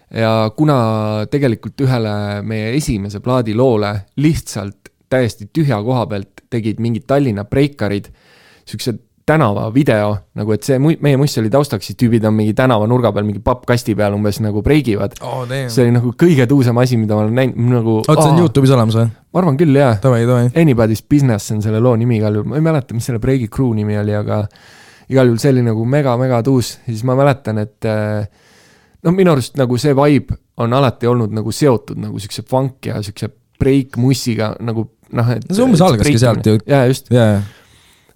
Ja kuna tegelikult ühele meie esimese plaadi loole lihtsalt täiesti tühja koha pealt tegid mingid Tallinna breikarid, siukse tänava video, nagu et see meie muss oli taustaks, siis tüübid on mingi tänava nurga peal, mingi pappkasti peal umbes nagu breigivad. See oli nagu kõige tuusem asi, mida ma olen näinud nagu, see on YouTube'is olemas või? Ma arvan küll, jah. Tavai. Anybody's Business on selle loo nimi igal juhul, ma ei mäleta, mis selle breigi crew nimi oli, aga igal juhul see oli nagu mega tuus, ja siis ma mäletan, et no minu arust nagu see vibe on alati olnud nagu seotud nagu siukse funk ja siukse break mussiga nagu noh, et see umbes algaski sealt ju. Ja just.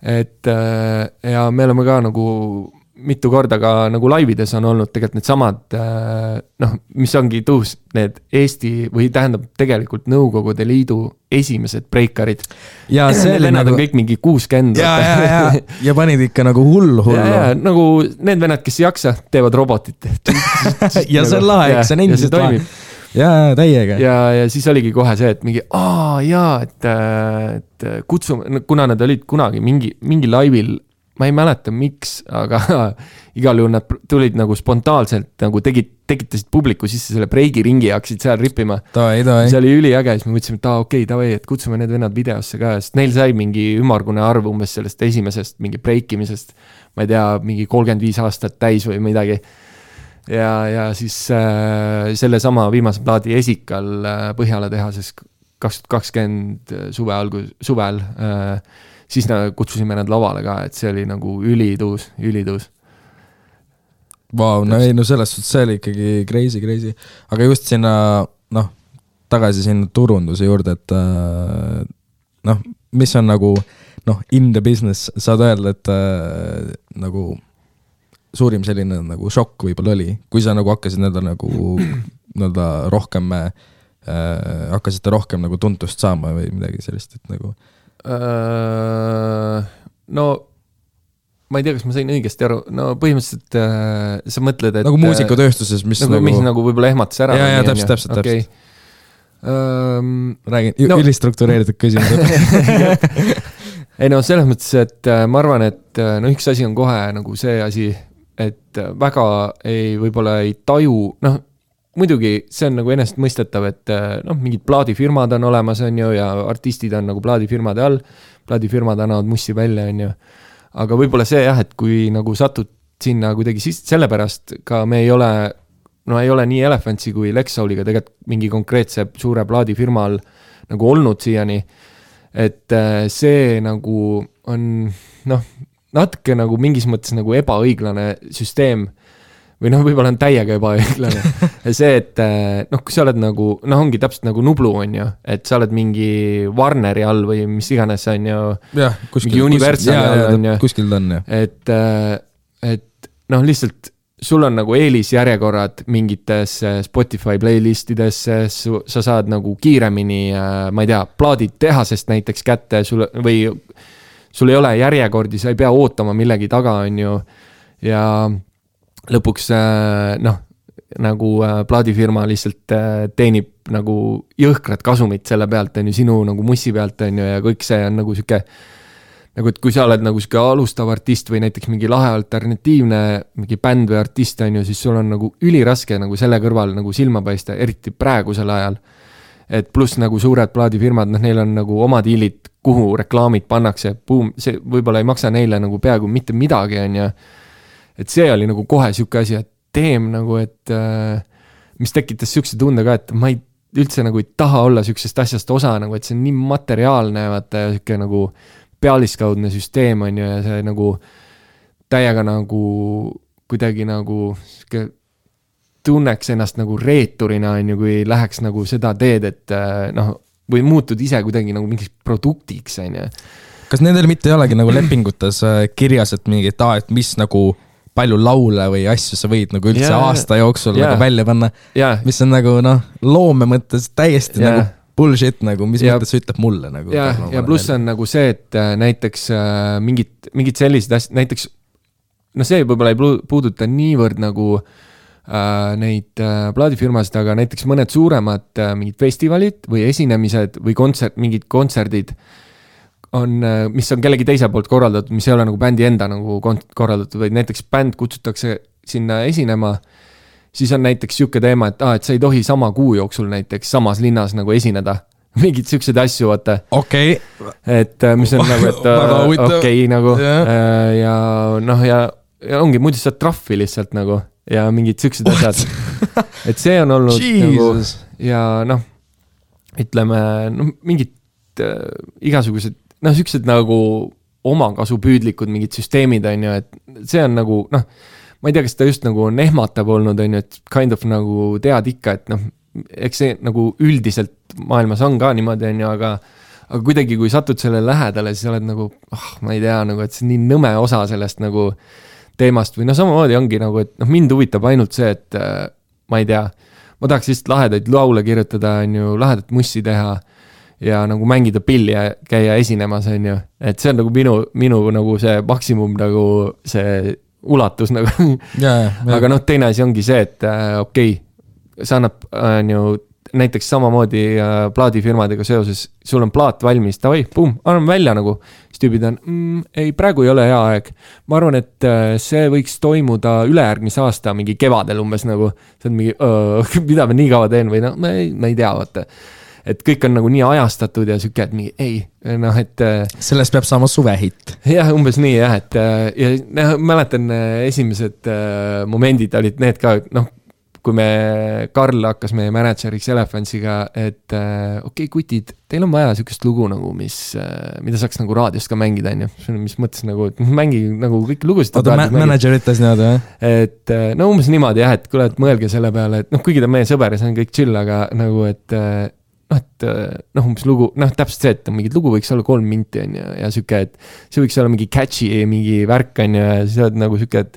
Et ja me oleme ka nagu mitu korda ka nagu laivides on olnud tegelikult need samad, noh, mis ongi tuus, need Eesti või tähendab tegelikult Nõukogude Liidu esimesed breikarid. Ja see oli nagu... on kõik mingi 60. Ja panid ikka nagu hullu. Ja, nagu need vennad, kes ei jaksa, teevad robotit. Ja see on lahe, eks see on endiselt lahe. Ja täiega. Ja siis oligi kohe see, et mingi, et kutsume, kuna nad olid kunagi mingi laivil, ma ei mäleta miks, aga igal juhul nad tulid nagu spontaanselt nagu tekitasid publiku sisse selle breigiringi ja hakkasid seal rippima. See oli üliäge, siis me mõtlesime, et okei, et kutsume need vennad videosse ka, sest neil sai mingi ümmargune arv umbes sellest esimesest mingi breikimisest, ma ei tea, mingi 35 aastat täis või midagi. Ja siis selle sama viimase plaadi Esikal Põhjala tehases 2020 suvel siis kutsusime nad lavale ka, et see oli nagu ülituus. Vau, no ei, no selles suhtes see oli ikkagi crazy. Aga just sinna, noh, tagasi sinna turunduse juurde, et noh, mis on nagu, noh, in the business, saad öelda, et nagu suurim selline nagu šokk võib-olla oli, kui sa nagu hakkasid nii-öelda rohkem, hakkasite rohkem nagu tuntust saama või midagi sellist, et nagu no ma ei tea, kas ma sain õigesti aru, no põhimõtteliselt sa mõtled, et nagu muusikutööstuses, mis nagu võib-olla ehmatas ära. Ja, täpselt. Okay. Räägin, ülistruktureeritud küsimused. Ei no selles mõttes, et ma arvan, et no üks asi on kohe nagu see asi, et väga võib-olla ei taju, noh, muidugi see on nagu ennast mõistetav, et noh, mingid plaadifirmad on olemas, on ju, ja artistid on nagu plaadifirmade all, plaadifirmad annavad mussi välja, on ju. Aga võib-olla see jah, et kui nagu satud sinna kuidagi sellepärast ka me ei ole nii Elefantsi kui Lexouliga tegelikult mingi konkreetse suure plaadifirma all nagu olnud siiani, et see nagu on noh, natuke nagu mingis mõttes nagu ebaõiglane süsteem või noh, võib-olla on täiega ebaõiglane. See, et noh, kui sa oled nagu, noh, ongi täpselt nagu Nublu, on ju, et sa oled mingi Warneri all või mis iganes, on ju, mingi Universali all, on ju. Kuskil ta on, jah. Et noh, lihtsalt sul on nagu eelisjärjekorrad mingites Spotify playlistidesse, sa saad nagu kiiremini, ma ei tea, plaadid tehasest näiteks kätte, või sul ei ole järjekordi, sa ei pea ootama millegi taga, on ju, ja lõpuks noh, nagu plaadifirma lihtsalt teenib nagu jõhkrat kasumit selle pealt, on ju, sinu nagu mussi pealt, on ju, ja kõik see on nagu siuke, nagu et kui sa oled nagu siuke alustav artist või näiteks mingi lahe alternatiivne mingi bänd või artist, on ju, siis sul on nagu üliraske nagu selle kõrval nagu silma paista, eriti praegusel ajal. Et pluss nagu suured plaadifirmad, noh, neil on nagu oma diilid, kuhu reklaamid pannakse, see võib-olla ei maksa neile nagu peaaegu mitte midagi, on ju. Et see oli nagu kohe siuke asi, et teem nagu, et mis tekitas siukse tunde ka, et ma üldse nagu ei taha olla siuksest asjast osa, nagu, et see on nii materiaalne, vaata, ja siuke nagu pealiskaudne süsteem, on ju, ja see nagu täiega nagu kuidagi nagu siuke tunneks ennast nagu reeturina, on ju, kui läheks nagu seda teed, et noh, või muutud ise kuidagi nagu mingiks produktiks, on ju. Kas nendel mitte ei olegi nagu lepingutes kirjas, et mingi, et mis nagu palju laule või asju sa võid nagu üldse aasta jooksul nagu välja panna, mis on nagu noh, loome mõttes täiesti nagu bullshit, nagu mis mõttes ütleb mulle nagu. Ja pluss on nagu see, et näiteks mingid sellised asjad, näiteks no see võib-olla ei puuduta niivõrd nagu neid plaadifirmasid, aga näiteks mõned suuremad mingid festivalid või esinemised või mingid kontserdid on, mis on kellegi teise poolt korraldatud, mis ei ole nagu bändi enda nagu korraldatud, vaid näiteks bänd kutsutakse sinna esinema, siis on näiteks siuke teema, et sa ei tohi sama kuu jooksul näiteks samas linnas nagu esineda. Mingid siuksed asju, vaata. Okei. Et mis on nagu, et okei nagu. Ja noh, ja ongi, muidu saad trahvi lihtsalt nagu ja mingid siuksed asjad. Et see on olnud nagu, ja noh, ütleme, mingid igasugused noh, siuksed nagu omakasupüüdlikud mingid süsteemid, on ju, et see on nagu, noh, ma ei tea, kas ta just nagu on ehmatav olnud, on ju, et kind of nagu tead ikka, et noh, eks see nagu üldiselt maailmas on ka niimoodi, on ju, aga kuidagi, kui satud selle lähedale, siis oled nagu, ma ei tea, nagu, et see on nii nõme osa sellest nagu teemast või samamoodi ongi nagu, et mind huvitab ainult see, et ma ei tea, ma tahaks lihtsalt lahedaid laule kirjutada, on ju, lahedat mussi teha ja nagu mängida pilli ja käia esinemas, on ju, et see on nagu minu nagu see maksimum nagu see ulatus nagu. Aga teine asi ongi see, et okei, see annab, on ju, näiteks samamoodi plaadifirmadega seoses, sul on plaat valmis, tavai, pum, anname välja nagu, siis tüübid on, ei, praegu ei ole hea aeg. Ma arvan, et see võiks toimuda ülejärgmise aasta mingi kevadel umbes nagu, see on mingi, mida ma nii kaua teen või ma ei tea, vaata. Et kõik on nagu nii ajastatud ja süke, et mingi, ei, et sellest peab saama suvehitt. Jah, umbes nii, jah, et ja mäletan esimesed momendid olid need ka, kui Karl hakkas meie manager'iks Elefantsiga, et okei, kutid, teil on vaja sükest lugu nagu, mida saaks nagu raadiost ka mängida, on ju. Mis mõttes nagu, et mängi nagu kõik lugusid. Oota, manager ütles niimoodi, jah? Et umbes niimoodi, jah, et kuule, et mõelge selle peale, et kuigi ta meie sõber ja see on kõik chill, aga nagu, et umbes lugu, täpselt see, et mingid lugu võiks olla 3 minti, on ju, ja süke, et see võiks olla mingi catchy, mingi värk, on ju, ja siis oled nagu süke, et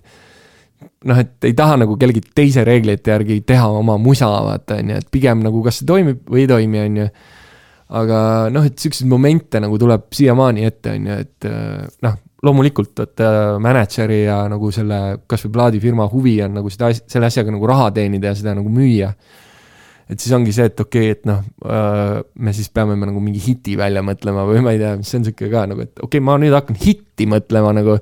et ei taha nagu kellegi teise reeglite järgi teha oma musa, vaata, on ju, et pigem nagu kas see toimib või ei toimi, on ju. Aga et selliseid momente nagu tuleb siiamaani ette, on ju, et loomulikult, et manageri ja nagu selle kas või plaadifirma huvi on nagu selle asjaga nagu raha teenida ja seda nagu müüa. Et siis ongi see, et okei, et me siis peame nagu mingi hiti välja mõtlema või ma ei tea, mis see on siuke ka nagu, et okei, ma nüüd hakkan hitti mõtlema nagu,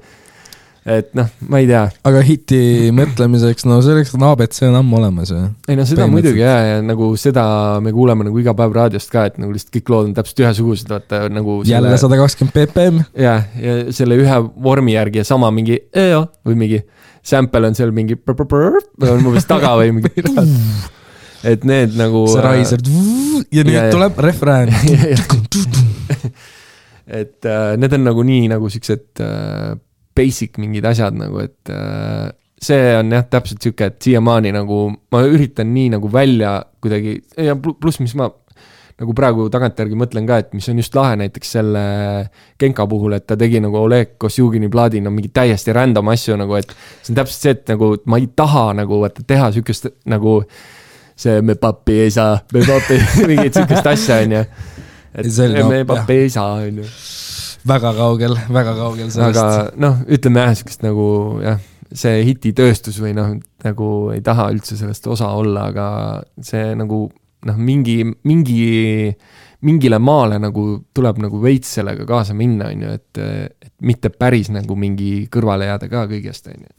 et ma ei tea. Aga hiti mõtlemiseks, selleks on ABC on ammu olemas. Ei seda muidugi ja nagu seda me kuuleme nagu iga päev raadiost ka, et nagu lihtsalt kõik lood on täpselt ühesugused, vaata nagu jälle 120 ppm. Ja selle ühe vormi järgi ja sama mingi või mingi sample on seal mingi on umbes taga või mingi et need nagu see raiser ja nüüd tuleb refrään. Et need on nagu nii nagu siuksed basic mingid asjad nagu, et see on jah täpselt siuke, et siiamaani nagu ma üritan nii nagu välja kuidagi ja pluss mis ma nagu praegu tagantjärgi mõtlen ka, et mis on just lahe näiteks selle Genka puhul, et ta tegi nagu Oleg Kosjugini plaadi mingi täiesti random asju nagu, et see on täpselt see, et nagu ma ei taha nagu teha siukest nagu see me papi ei saa, me papi mingit siukest asja on ju, et me papi ei saa on ju. Väga kaugel sellest. Aga ütleme jah, siukest nagu jah, see hititööstus või nagu ei taha üldse sellest osa olla, aga see nagu mingile maale nagu tuleb nagu veits sellega kaasa minna, on ju, et mitte päris nagu mingi kõrvale jääda ka kõigest, on ju.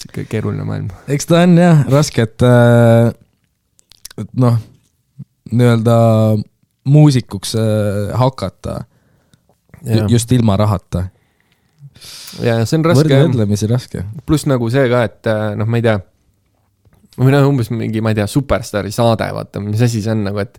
Siuke keeruline maailm. Eks ta on jah, raske, et nii-öelda muusikuks hakata just ilma rahata. Ja see on raske. Võrdlemisi raske. Plus nagu see ka, et ma ei tea, või umbes mingi, ma ei tea, Superstari saade, vaata, mis asi see on nagu, et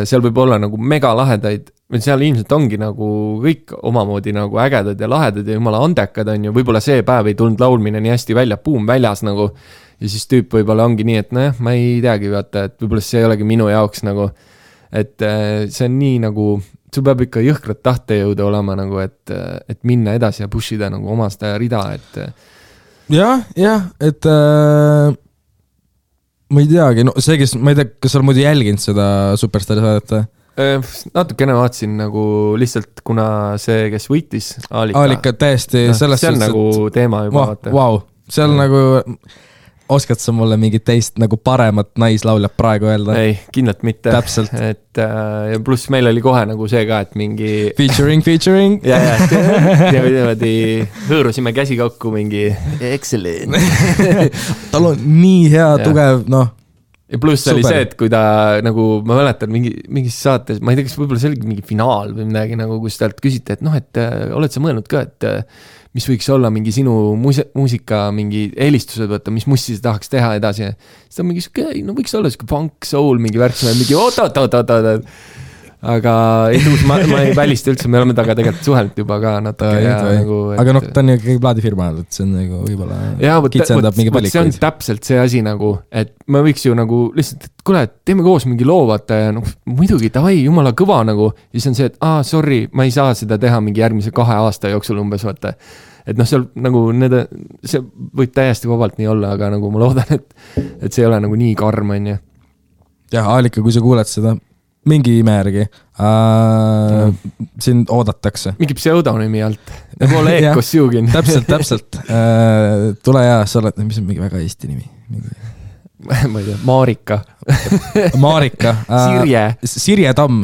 seal võib olla nagu mega lahedaid, seal ilmselt ongi nagu kõik omamoodi nagu ägedad ja lahedad ja jumala andekad on ju, võib-olla see päev ei tulnud laulmine nii hästi välja, puum väljas nagu, ja siis tüüp võib-olla ongi nii, et ma ei teagi, vaata, et võib-olla see ei olegi minu jaoks nagu, et see on nii nagu, sul peab ikka jõhkrat tahtejõuda olema nagu, et minna edasi ja pushida nagu oma seda rida, et jah, et ma ei teagi, see, kes, ma ei tea, kas sa oled muidu jälginud seda Superstari saadet? Natukene vaatsin nagu lihtsalt, kuna see, kes võitis Aalika täiesti see on nagu teema juba wow. Seal nagu oskad sa mulle mingit teist nagu paremat naislauljat praegu öelda? Ei, kindlalt mitte. Täpselt. Et ja pluss meil oli kohe nagu see ka, et mingi Featuring ja niimoodi hõõrusime käsi kokku mingi excellent. Tal on nii hea, tugev, ja pluss oli see, et kui ta nagu, ma mäletan mingis saates, ma ei tea, kas võib-olla see oli mingi finaal või midagi nagu, kus talt küsite, et oled sa mõelnud ka, et mis võiks olla mingi sinu muusika mingi eelistused, võtta, mis mussi sa tahaks teha edasi. Siis ta mingi siuke, võiks olla siuke funk, soul, mingi värksime, mingi oot. Aga ei tuus, ma ei välista üldse, me oleme taga tegelikult suhelt juba ka natuke. Aga ta on ju kõige plaadifirma, et see on nagu võib-olla kitsendab mingi valikuid. See on täpselt see asi nagu, et me võiks ju nagu lihtsalt, et kuule, teeme koos mingi loo, vaata ja muidugi, davai, jumala kõva nagu. Ja siis on see, et sorry, ma ei saa seda teha mingi järgmise 2 aasta jooksul umbes, vaata. et noh, seal nagu see võib täiesti vabalt nii olla, aga nagu ma loodan, et see ei ole nagu nii karm, on ju. Jah, Aalika, kui sa kuuled seda, mingi ime järgi sind oodatakse. Mingi pseudonümi alt, nagu Oleg Kossjugin. Täpselt. Tule ja sa oled, mis on mingi väga eesti nimi? Ma ei tea, Marika. Sirje Tamm.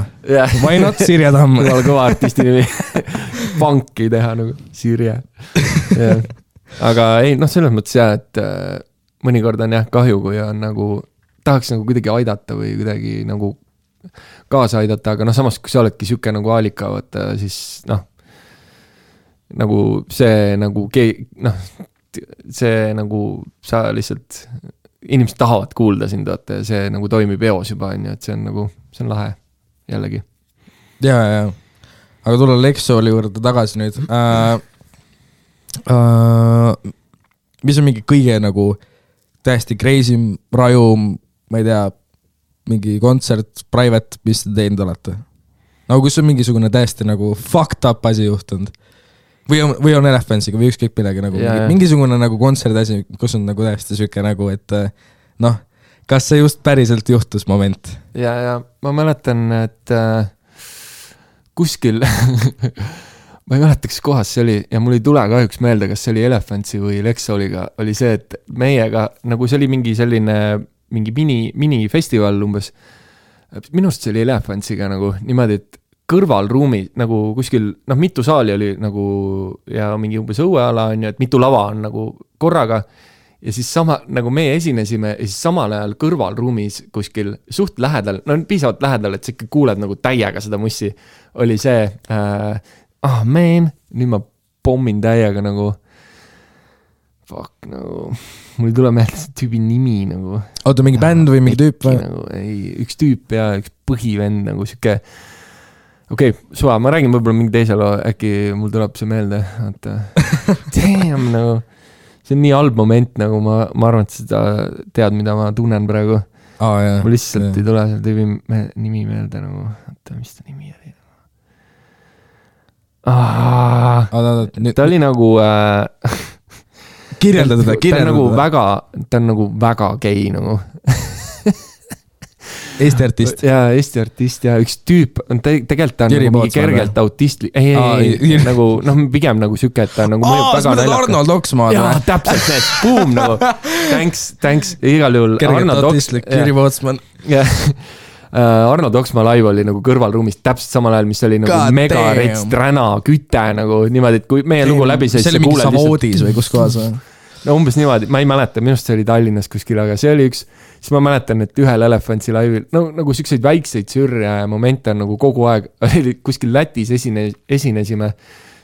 Why not Sirje Tamm? Kõva kõva artisti nimi. Panki teha nagu Sirje. Aga ei, noh, selles mõttes jah, et mõnikord on jah kahju, kui on nagu, tahaks nagu kuidagi aidata või kuidagi nagu kaasa aidata, aga noh, samas kui sa oledki siuke nagu Aalika, võtta, siis noh, nagu see nagu see nagu sa lihtsalt inimesed tahavad kuulda sind, vaata, ja see nagu toimib eos juba, on ju, et see on nagu, see on lahe jällegi. Ja. Aga tulla Lexoli juurde tagasi nüüd. Mis on mingi kõige nagu täiesti crazy, rajum, ma ei tea, mingi kontsert, private, mis te teinud olete? Nagu kus on mingisugune täiesti nagu fucked up asi juhtunud? Või on Elefantsiga või ükskõik midagi nagu mingisugune nagu kontserdi asi, kus on nagu täiesti süke nagu, et noh, kas see just päriselt juhtus moment? Ja ma mäletan, et kuskil ma ei mäleta, kas kohas see oli ja mul ei tule kahjuks meelde, kas see oli Elefantsi või Lexoliga, oli see, et meiega, nagu see oli mingi selline mingi minifestival umbes, minust see oli Elefantsiga nagu niimoodi, et kõrvalruumi nagu kuskil, noh, mitu saali oli nagu ja mingi umbes õueala on ju, et mitu lava on nagu korraga ja siis sama, nagu meie esinesime ja siis samal ajal kõrvalruumis kuskil suht lähedal, no piisavalt lähedal, et sa ikka kuuled nagu täiega seda mussi, oli see man, nüüd ma pommin täiega nagu fuck, nagu mul ei tule meelde see tüübi nimi nagu. Oota, mingi bänd või mingi tüüp või? Nagu, ei, üks tüüp ja üks põhivend nagu siuke. Okei, suva, ma räägin võib-olla mingi teise loo, äkki mul tuleb see meelde. Damn, nagu, see on nii halb moment, nagu ma arvan, et seda tead, mida ma tunnen praegu. Mul lihtsalt ei tule selle tüübi nimi meelde nagu, mis ta nimi oli? Ta oli nagu kirjelda teda. Ta on nagu väga gei nagu. Eesti artist. Jaa, Eesti artist ja üks tüüp on tegelikult ta on nagu mingi kergelt autistli. Ei, nagu, noh, pigem nagu süke, et ta on nagu mõjub väga naljaka. Arnold Oksmaa. Jaa, täpselt need, boom, nagu. Thanks, igal juhul. Kergelt autistlik, Jüri Pootsman. Arnold Oksmaa live oli nagu kõrvalruumis täpselt samal ajal, mis oli nagu mega rets, träna, küte nagu niimoodi, et kui meie lugu läbi see oli mingi Savoodis või kus kohas või? No umbes niimoodi, ma ei mäleta, minust see oli Tallinnas kuskil, aga see oli üks, siis ma mäletan, et ühel Elefantsi laivil, no nagu siukseid väikseid sürja ja momente on nagu kogu aeg, oli kuskil Lätis esinesime,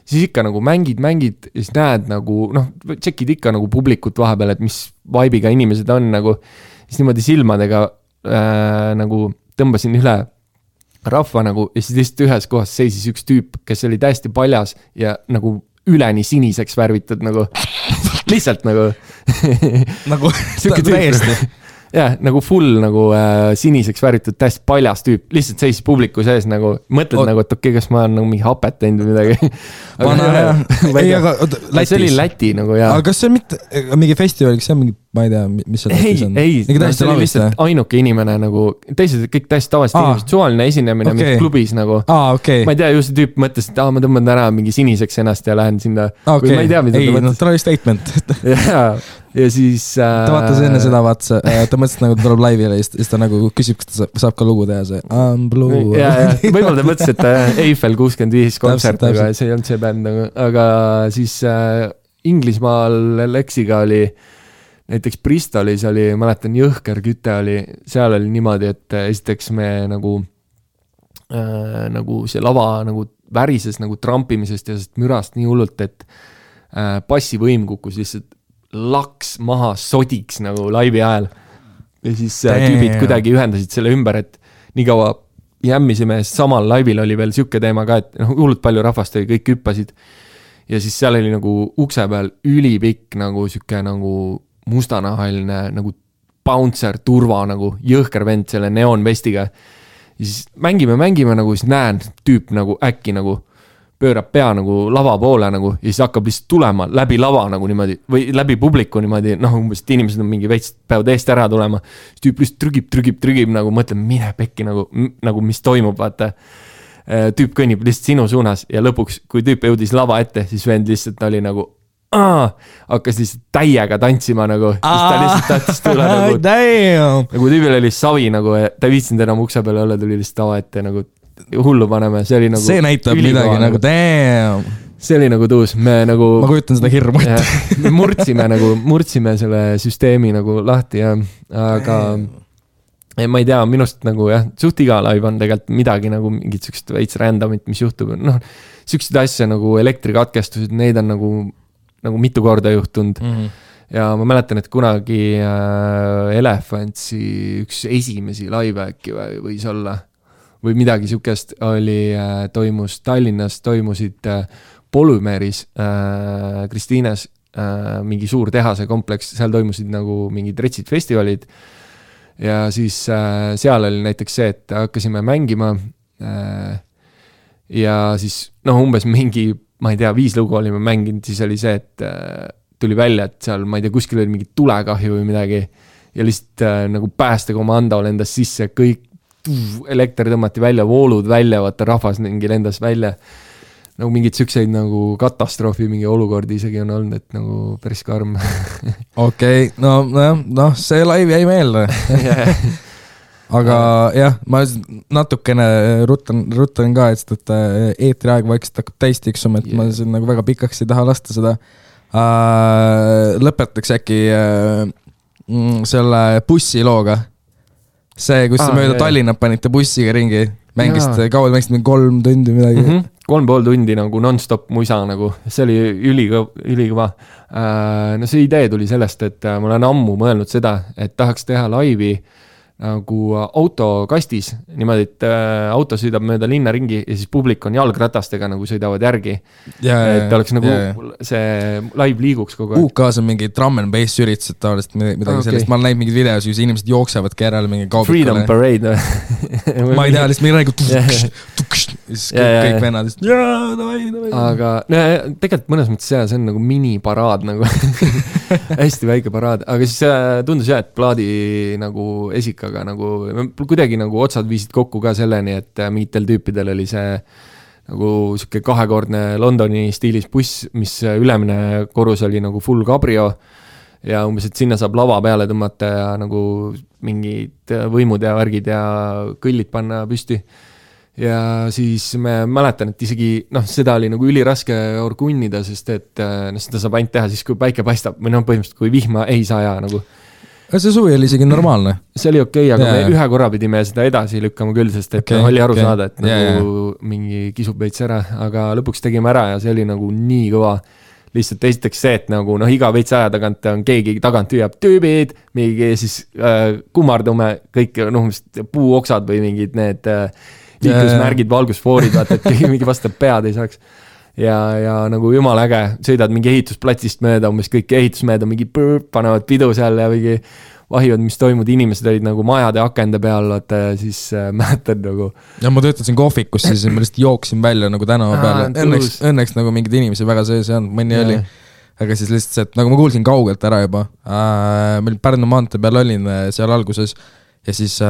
siis ikka nagu mängid ja siis näed nagu, noh, tšekid ikka nagu publikut vahepeal, et mis vibe'iga inimesed on nagu, siis niimoodi silmadega nagu tõmbasin üle rahva nagu ja siis lihtsalt ühes kohas seisis üks tüüp, kes oli täiesti paljas ja nagu üleni siniseks värvitud nagu lihtsalt nagu nagu täiesti jah, nagu full nagu siniseks värvitud täiesti paljas tüüp, lihtsalt seisis publiku sees nagu, mõtled nagu, et okei, kas ma olen nagu mingi hapet teinud või midagi. See oli Läti nagu jah. Aga kas see on mitte mingi festival, kas see on mingi, ma ei tea, mis see Lätis on? Ei, see oli lihtsalt ainuke inimene nagu, teised kõik täiesti tavaliselt inimesed, suvaline esinemine mingi klubis nagu. Ma ei tea, ju see tüüp mõtles, et ma tõmban täna mingi siniseks ennast ja lähen sinna. Või ma ei tea, mida ta mõtles. Ta oli statement. Ja siis ta vaatas enne seda, ta mõtles nagu ta tuleb laivile ja siis ta nagu küsib, kas ta saab ka lugu teha see I'm Blue. Võib-olla ta mõtles, et Eiffel 65 kontsert, aga see ei olnud see bänd, aga siis Inglismaal Lexiga oli näiteks Bristolis oli, mäletan, jõhker küte oli, seal oli niimoodi, et esiteks me nagu see lava nagu värises nagu trampimisest ja sest mürast nii hullult, et bassivõim kukkus lihtsalt laks maha sodiks nagu laivi ajal. Ja siis tüübid kuidagi ühendasid selle ümber, et nii kaua jämmisime, samal laivil oli veel siuke teema ka, et hullult palju rahvast oli, kõik hüppasid. Ja siis seal oli nagu ukse peal ülipikk nagu siuke nagu mustanahaline nagu bouncer, turva nagu jõhker vend selle neonvestiga. Ja siis mängime nagu, siis näen tüüp nagu äkki nagu pöörab pea nagu lava poole nagu ja siis hakkab lihtsalt tulema läbi lava nagu niimoodi või läbi publiku niimoodi, noh umbes, et inimesed on mingi veits, peavad eest ära tulema, siis tüüp lihtsalt trügib nagu, mõtleb, mine pekki nagu mis toimub, vaata. Tüüp kõnnib lihtsalt sinu suunas ja lõpuks, kui tüüp jõudis lava ette, siis vend lihtsalt oli nagu hakkas lihtsalt täiega tantsima nagu, siis ta lihtsalt tahtis tulla nagu tüübil oli savi nagu, ta ei viitsinud enam ukse peale olla, tuli lihtsalt tava ette nagu hullu paneme, see oli nagu see näitab midagi nagu damn. See oli nagu tuus, me nagu ma kujutan seda hirmu ette. Me murdsime selle süsteemi nagu lahti ja aga ma ei tea, minust nagu jah, suht iga live on tegelikult midagi nagu mingit sükst veits randomit, mis juhtub, noh, süksid asja nagu elektrikatkestused, neid on nagu mitu korda juhtunud ja ma mäletan, et kunagi Elefantsi üks esimesi live äkki võis olla või midagi sükest oli, toimus Tallinnas, toimusid Polümeeris, Kristiines, mingi suur tehase kompleks, seal toimusid nagu mingid retsid festivalid ja siis seal oli näiteks see, et hakkasime mängima ja siis umbes mingi, ma ei tea, 5 lugu olime mänginud, siis oli see, et tuli välja, et seal, ma ei tea, kuskil oli mingi tulekahju või midagi ja lihtsalt nagu päästekomando lendas sisse, kõik elekter tõmmati välja, voolud välja, vaata rahvas mingi lendas välja. Nagu mingid sükseid nagu katastroofi mingi olukordi isegi on olnud, et nagu päris karm. Okei, no see live jäi meelde. Aga jah, ma natukene rutan ka, et eetriaeg vaikselt hakkab täis tiksuma, et ma nagu väga pikaks ei taha lasta seda. Lõpetaks äkki selle bussilooga. See, kus mööda Tallinnat panite bussiga ringi, mängisite 3 tundi midagi. 3,5 tundi nagu non-stop muisa nagu, see oli ülikõva. No see idee tuli sellest, et ma olen ammu mõelnud seda, et tahaks teha laivi nagu autokastis, niimoodi, et auto sõidab mööda linna ringi ja siis publik on jalgratastega nagu sõidavad järgi. Et oleks nagu see live liiguks kogu aeg. UK-s on mingi drum and bass üritused taolist midagi sellist. Ma olen näinud mingid videos, kus inimesed jooksevadki järele mingi kaubikule. Freedom Parade. Ma ei tea, lihtsalt mingi räägu kõik vennad. Aga tegelikult mõnes mõttes see on nagu miniparaad nagu. Hästi väike paraad. Aga siis tundus jah, et plaadi nagu esikaga nagu kuidagi nagu otsad viisid kokku ka selleni, et mingitel tüüpidel oli see nagu siuke 2-kordne Londoni stiilis buss, mis ülemine korrus oli nagu full cabrio ja umbes, et sinna saab lava peale tõmmata ja nagu mingid võimud ja värgid ja kõllid panna püsti. Ja siis me mäletan, et isegi seda oli nagu üliraske orgunnida, sest et seda saab ainult teha siis, kui päike paistab või põhimõtteliselt, kui vihma ei saja nagu. See suvi oli isegi normaalne. See oli okei, aga me ühe korra pidime seda edasi lükkama küll, sest et oli aru saada, et nagu mingi kisub veits ära, aga lõpuks tegime ära ja see oli nagu nii kõva. Lihtsalt esiteks see, et nagu iga veits aja tagant on keegi tagant hüüab tüübid, mingi siis kummardume kõik puuoksad või mingid need liiklusmärgid, valgusfoorid, vaata, et keegi mingi vastab pead ei saaks. Ja nagu jumal äge, sõidad mingi ehitusplatsist mööda, umbes kõik ehitusmööda mingi panevad pidu seal ja mingi vahivad, mis toimud, inimesed olid nagu majade akende peal, vaata, ja siis mäletad nagu. Ja ma töötasin kohvikus, siis ma lihtsalt jooksin välja nagu tänava peale. Õnneks nagu mingid inimesi väga sees ei olnud, mõni oli. Aga siis lihtsalt see, et nagu ma kuulsin kaugelt ära juba. Meil Pärnu maantee peal olin seal alguses ja siis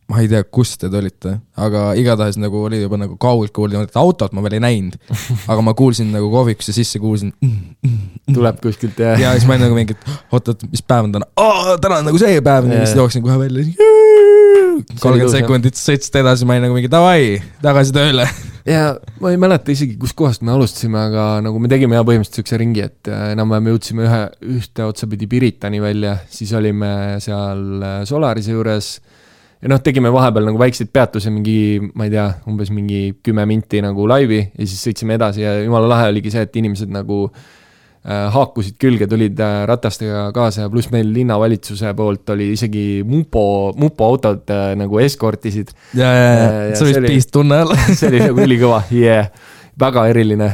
ma ei tea, kus te olite, aga igatahes nagu oli juba nagu kaugelt kuulda, et autot ma veel ei näinud, aga ma kuulsin nagu kohvikusse sisse, kuulsin tuleb kuskilt ja siis ma olin nagu mingi, oot, mis päev on täna? Täna on nagu see päev, ja siis jooksin kohe välja 30 sekundit sõitsid edasi, ma olin nagu mingi davai, tagasi tööle. Ja ma ei mäleta isegi, kus kohast me alustasime, aga nagu me tegime põhimõtteliselt sükse ringi, et enam-vähem jõudsime ühte otsapidi Piritani välja, siis olime seal Solarise juures. Ja tegime vahepeal nagu väikseid peatusi mingi, ma ei tea, umbes mingi 10 minti nagu laivi ja siis sõitsime edasi ja jumala lahe oligi see, et inimesed nagu haakusid külge, tulid ratastega kaasa ja pluss meil linnavalitsuse poolt oli isegi mupo autod nagu eskortisid. Ja see oli piist tunne all. See oli nagu ülikõva, väga eriline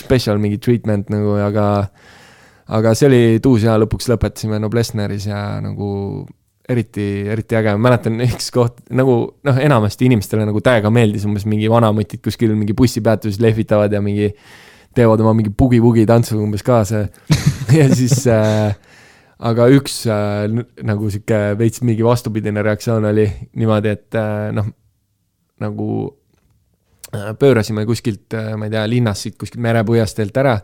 special mingi treatment nagu, aga see oli tuus ja lõpuks lõpetasime Noblessneris ja nagu eriti äge, ma mäletan üks koht nagu enamasti inimestele nagu täiega meeldis umbes mingi vanamutid kuskil mingi bussipeatuses lehvitavad ja mingi teevad oma mingi bugi-bugi tantsu umbes kaasa ja siis aga üks nagu siuke veits mingi vastupidine reaktsioon oli niimoodi, et nagu pöörasime kuskilt, ma ei tea, linnast siit kuskilt merepõhjastelt ära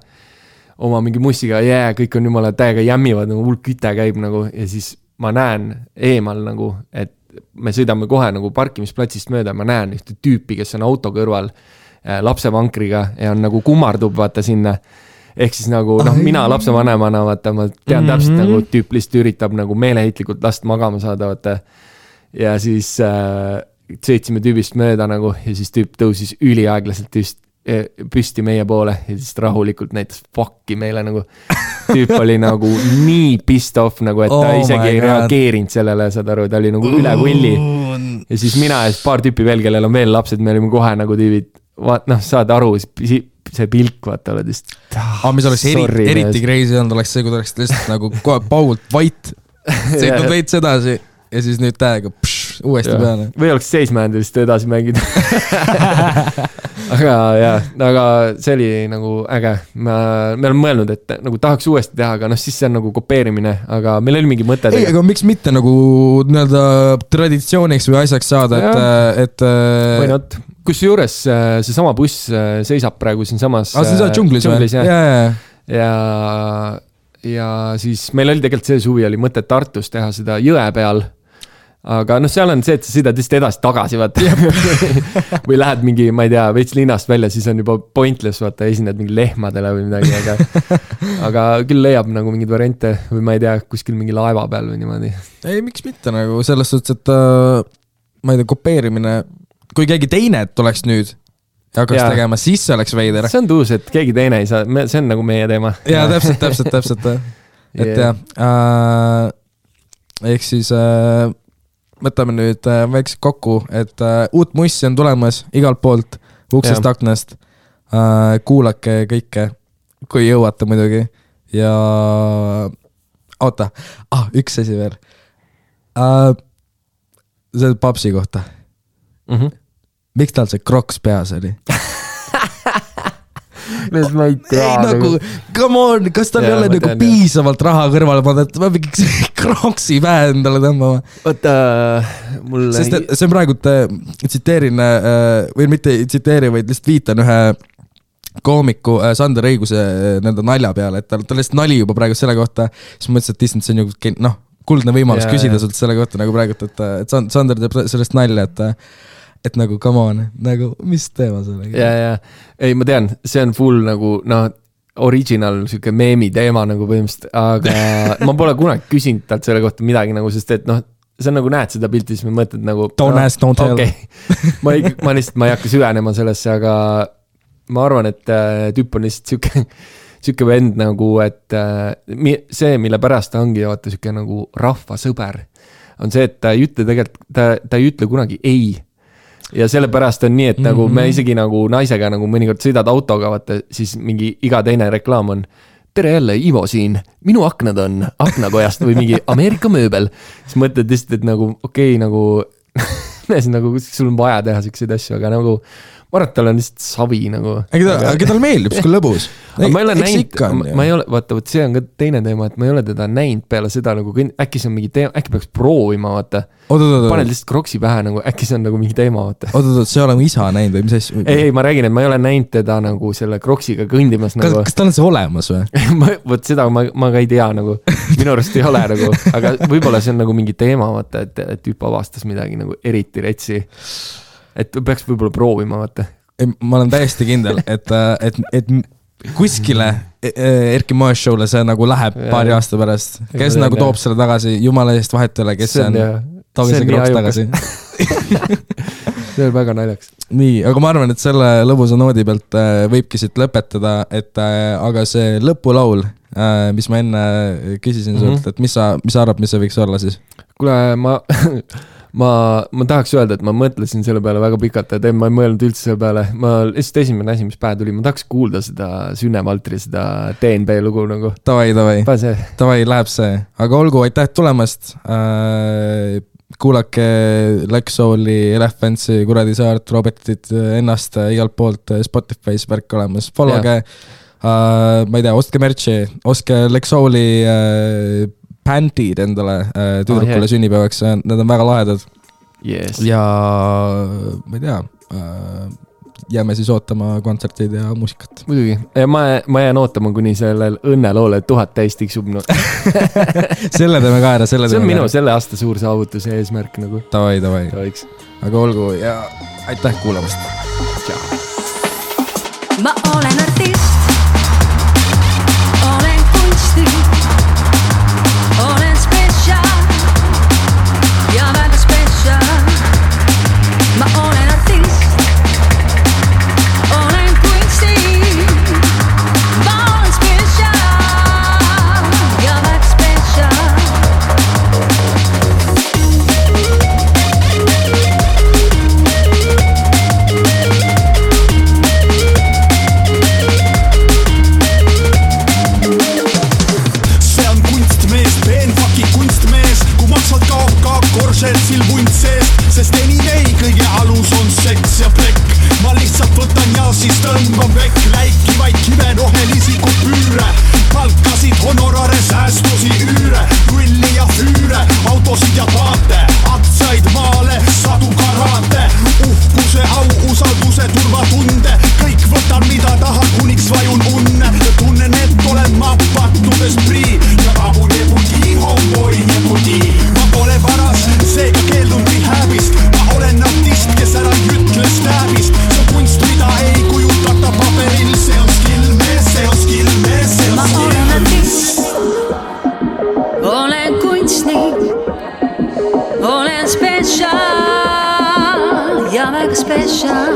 oma mingi mussiga, kõik on jumala täiega jämmivad, nagu hulk küte käib nagu ja siis ma näen eemal nagu, et me sõidame kohe nagu parkimisplatsist mööda, ma näen ühte tüüpi, kes on auto kõrval lapsevankriga ja on nagu kummardub vaata sinna. Ehk siis nagu, mina lapsevanemana vaata, ma tean täpselt nagu tüüp lihtsalt üritab nagu meeleheitlikult last magama saada vaata. Ja siis sõitsime tüübist mööda nagu ja siis tüüp tõusis üliaeglaselt püsti meie poole ja siis rahulikult näitas fuck'i meile nagu. Tüüp oli nagu nii pissed off nagu, et ta isegi ei reageerinud sellele, saad aru, ta oli nagu üle võlli. Ja siis mina ja paar tüüpi veel, kellel on veel lapsed, me olime kohe nagu tüübid, saad aru, see pilk, vaata, oled just. Mis oleks eriti crazy on, oleks see, kui ta oleks lihtsalt nagu kohe paugult vait, sõitnud veits edasi ja siis nüüd täiega uuesti peale. Või oleks seismäändu lihtsalt edasi mängida. aga see oli nagu äge. Me oleme mõelnud, et nagu tahaks uuesti teha, aga siis see on nagu kopeerimine, aga meil oli mingi mõte. Ei, aga miks mitte nagu nii-öelda traditsiooniks või asjaks saada, et või not. Kus juures see sama buss seisab praegu siin samas džunglis ja siis meil oli tegelikult see suvi oli mõte Tartus teha seda jõe peal. Aga seal on see, et sa sõidad lihtsalt edasi tagasi, vaata. Või lähed mingi, ma ei tea, veits linnast välja, siis on juba pointless, vaata, esined mingi lehmadele või midagi, aga küll leiab nagu mingid variante või ma ei tea, kuskil mingi laeva peal või niimoodi. Ei, miks mitte nagu selles suhtes, et ma ei tea, kopeerimine, kui keegi teine tuleks nüüd ja hakkaks tegema, siis see oleks veider. See on tuus, et keegi teine ei saa, see on nagu meie teema. Ja, täpselt. Et ehk siis võtame nüüd väikselt kokku, et uut mussi on tulemas igalt poolt, uksest aknast. Kuulake kõike, kui jõuate muidugi. Ja oota, üks asi veel. See papsi kohta. Miks tal see kroks peas oli? Ma ei tea. Nagu, come on, kas tal ei ole nagu piisavalt raha kõrvale panna, et ma mingi kroksi pähe endale tõmbama. Oota, mul... Sest see on praegu, tsiteerin, või mitte tsiteeri, vaid lihtsalt viitan ühe koomiku Sander Õiguse nende nalja peale, et ta lihtsalt nali juba praegu selle kohta, siis mõtlesin, et see on ju kuldne võimalus küsida sult selle kohta nagu praegu, et Sander teeb sellest nalja, et nagu, come on, nagu, mis teema selle? Ei, ma tean, see on full nagu, original siuke meemi teema nagu põhimõtteliselt, aga ma pole kunagi küsinud talt selle kohta midagi nagu, sest et see on nagu näed seda pilti, siis me mõtled nagu don't ask, don't tell. Ma lihtsalt, ma ei hakka süvenema sellesse, aga ma arvan, et tüüp on lihtsalt siuke vend nagu, et see, mille pärast ta ongi vaata siuke nagu rahvasõber, on see, et ta ei ütle tegelikult, ta ei ütle kunagi ei. Ja selle pärast on nii, et nagu me isegi nagu naisega nagu mõnikord sõidad autoga, vaata, siis mingi iga teine reklaam on tere jälle, Ivo siin, minu aknad on aknakojast või mingi Ameerika mööbel. Siis mõtled lihtsalt, et nagu nagu sul on vaja teha selliseid asju, aga nagu ma arvan, et tal on lihtsalt savi nagu. Aga tal meeldib, kui lõbus. Ma ei ole näinud, ma ei ole, vaata, see on ka teine teema, et ma ei ole teda näinud peale seda nagu, äkki see on mingi teema, äkki peaks proovima, vaata. Paned lihtsalt kroksi pähe nagu, äkki see on nagu mingi teema, vaata. See oleme isa näinud või mis asju? Ei, ma räägin, et ma ei ole näinud teda nagu selle kroksiga kõndimas nagu. Kas tal on see olemas või? Võt seda ma ka ei tea nagu, minu arust ei ole nagu, aga võib-olla see on nagu mingi teema, vaata, et tüüp avastas midagi nagu eriti retsi. Et peaks võib-olla proovima, vaata. Ma olen täiesti kindel, et kuskile Erki Moes show'le see nagu läheb paari aasta pärast. Kes nagu toob selle tagasi, jumala eest vahet üle, kes see on, toob see kroks tagasi. See on väga naljaks. Nii, aga ma arvan, et selle lõbusa noodi pealt võibki siit lõpetada, et aga see lõpulaul, mis ma enne küsisin sult, et mis sa arvad, mis see võiks olla siis? Kuule, ma tahaks öelda, et ma mõtlesin selle peale väga pikalt, et ma ei mõelnud üldse selle peale. Ma lihtsalt esimene asi, mis pähe tuli, ma tahaks kuulda seda Sünne Valtri, seda DNB lugu nagu. Tavai, läheb see. Aga olgu, aitäh tulemast. Kuulake Lexouli, Elephantsi, Kuradi Saart, Robertit ennast igalt poolt Spotify's värk olemas. Followge, ma ei tea, ostke merchi, ostke Lexouli bändid endale tüdrukule sünnipäevaks, need on väga lahedad. Yes. Ja ma ei tea, jääme siis ootama kontsertid ja muusikat. Muidugi, ja ma jään ootama, kuni sellel õnneloole 1000 täis tiksub. No. Selle teeme ka ära, see on minu selle aasta suur saavutuse eesmärk nagu. Tavai. Aga olgu ja aitäh kuulamast. Tšau. Ma olen artist, olen kunsti. Olen special ja väga special. Ma olen artist, olen kunsti. Ma olen special ja väga special. Korsetsil vunt seest, sest anyway kõige alus on seks ja plekk. Ma lihtsalt võtan ja siis tõmban vekk läikivaid kive rohelisi kupüüre. Palkasid, honorare, säästusi, üüre, grilli ja füüre, autosid ja paate, aktsiaid maale, sadu karaate, uhkuse, au, usalduse, turvatunde. Kõik võtan mida tahan, kuniks vajun unne. Tunnen, et olen ma pattudes prii ja vabu nebudi, homeboy nebudi. Ma pole varas, seega keeldun rehäbist. Ma olen artist, kes ära ütle stääbist. See kunst, mida ei kujutata paberil. See on skill mees, see on skill mees, see on Ma olen artist, olen kunstnik, olen special ja väga special.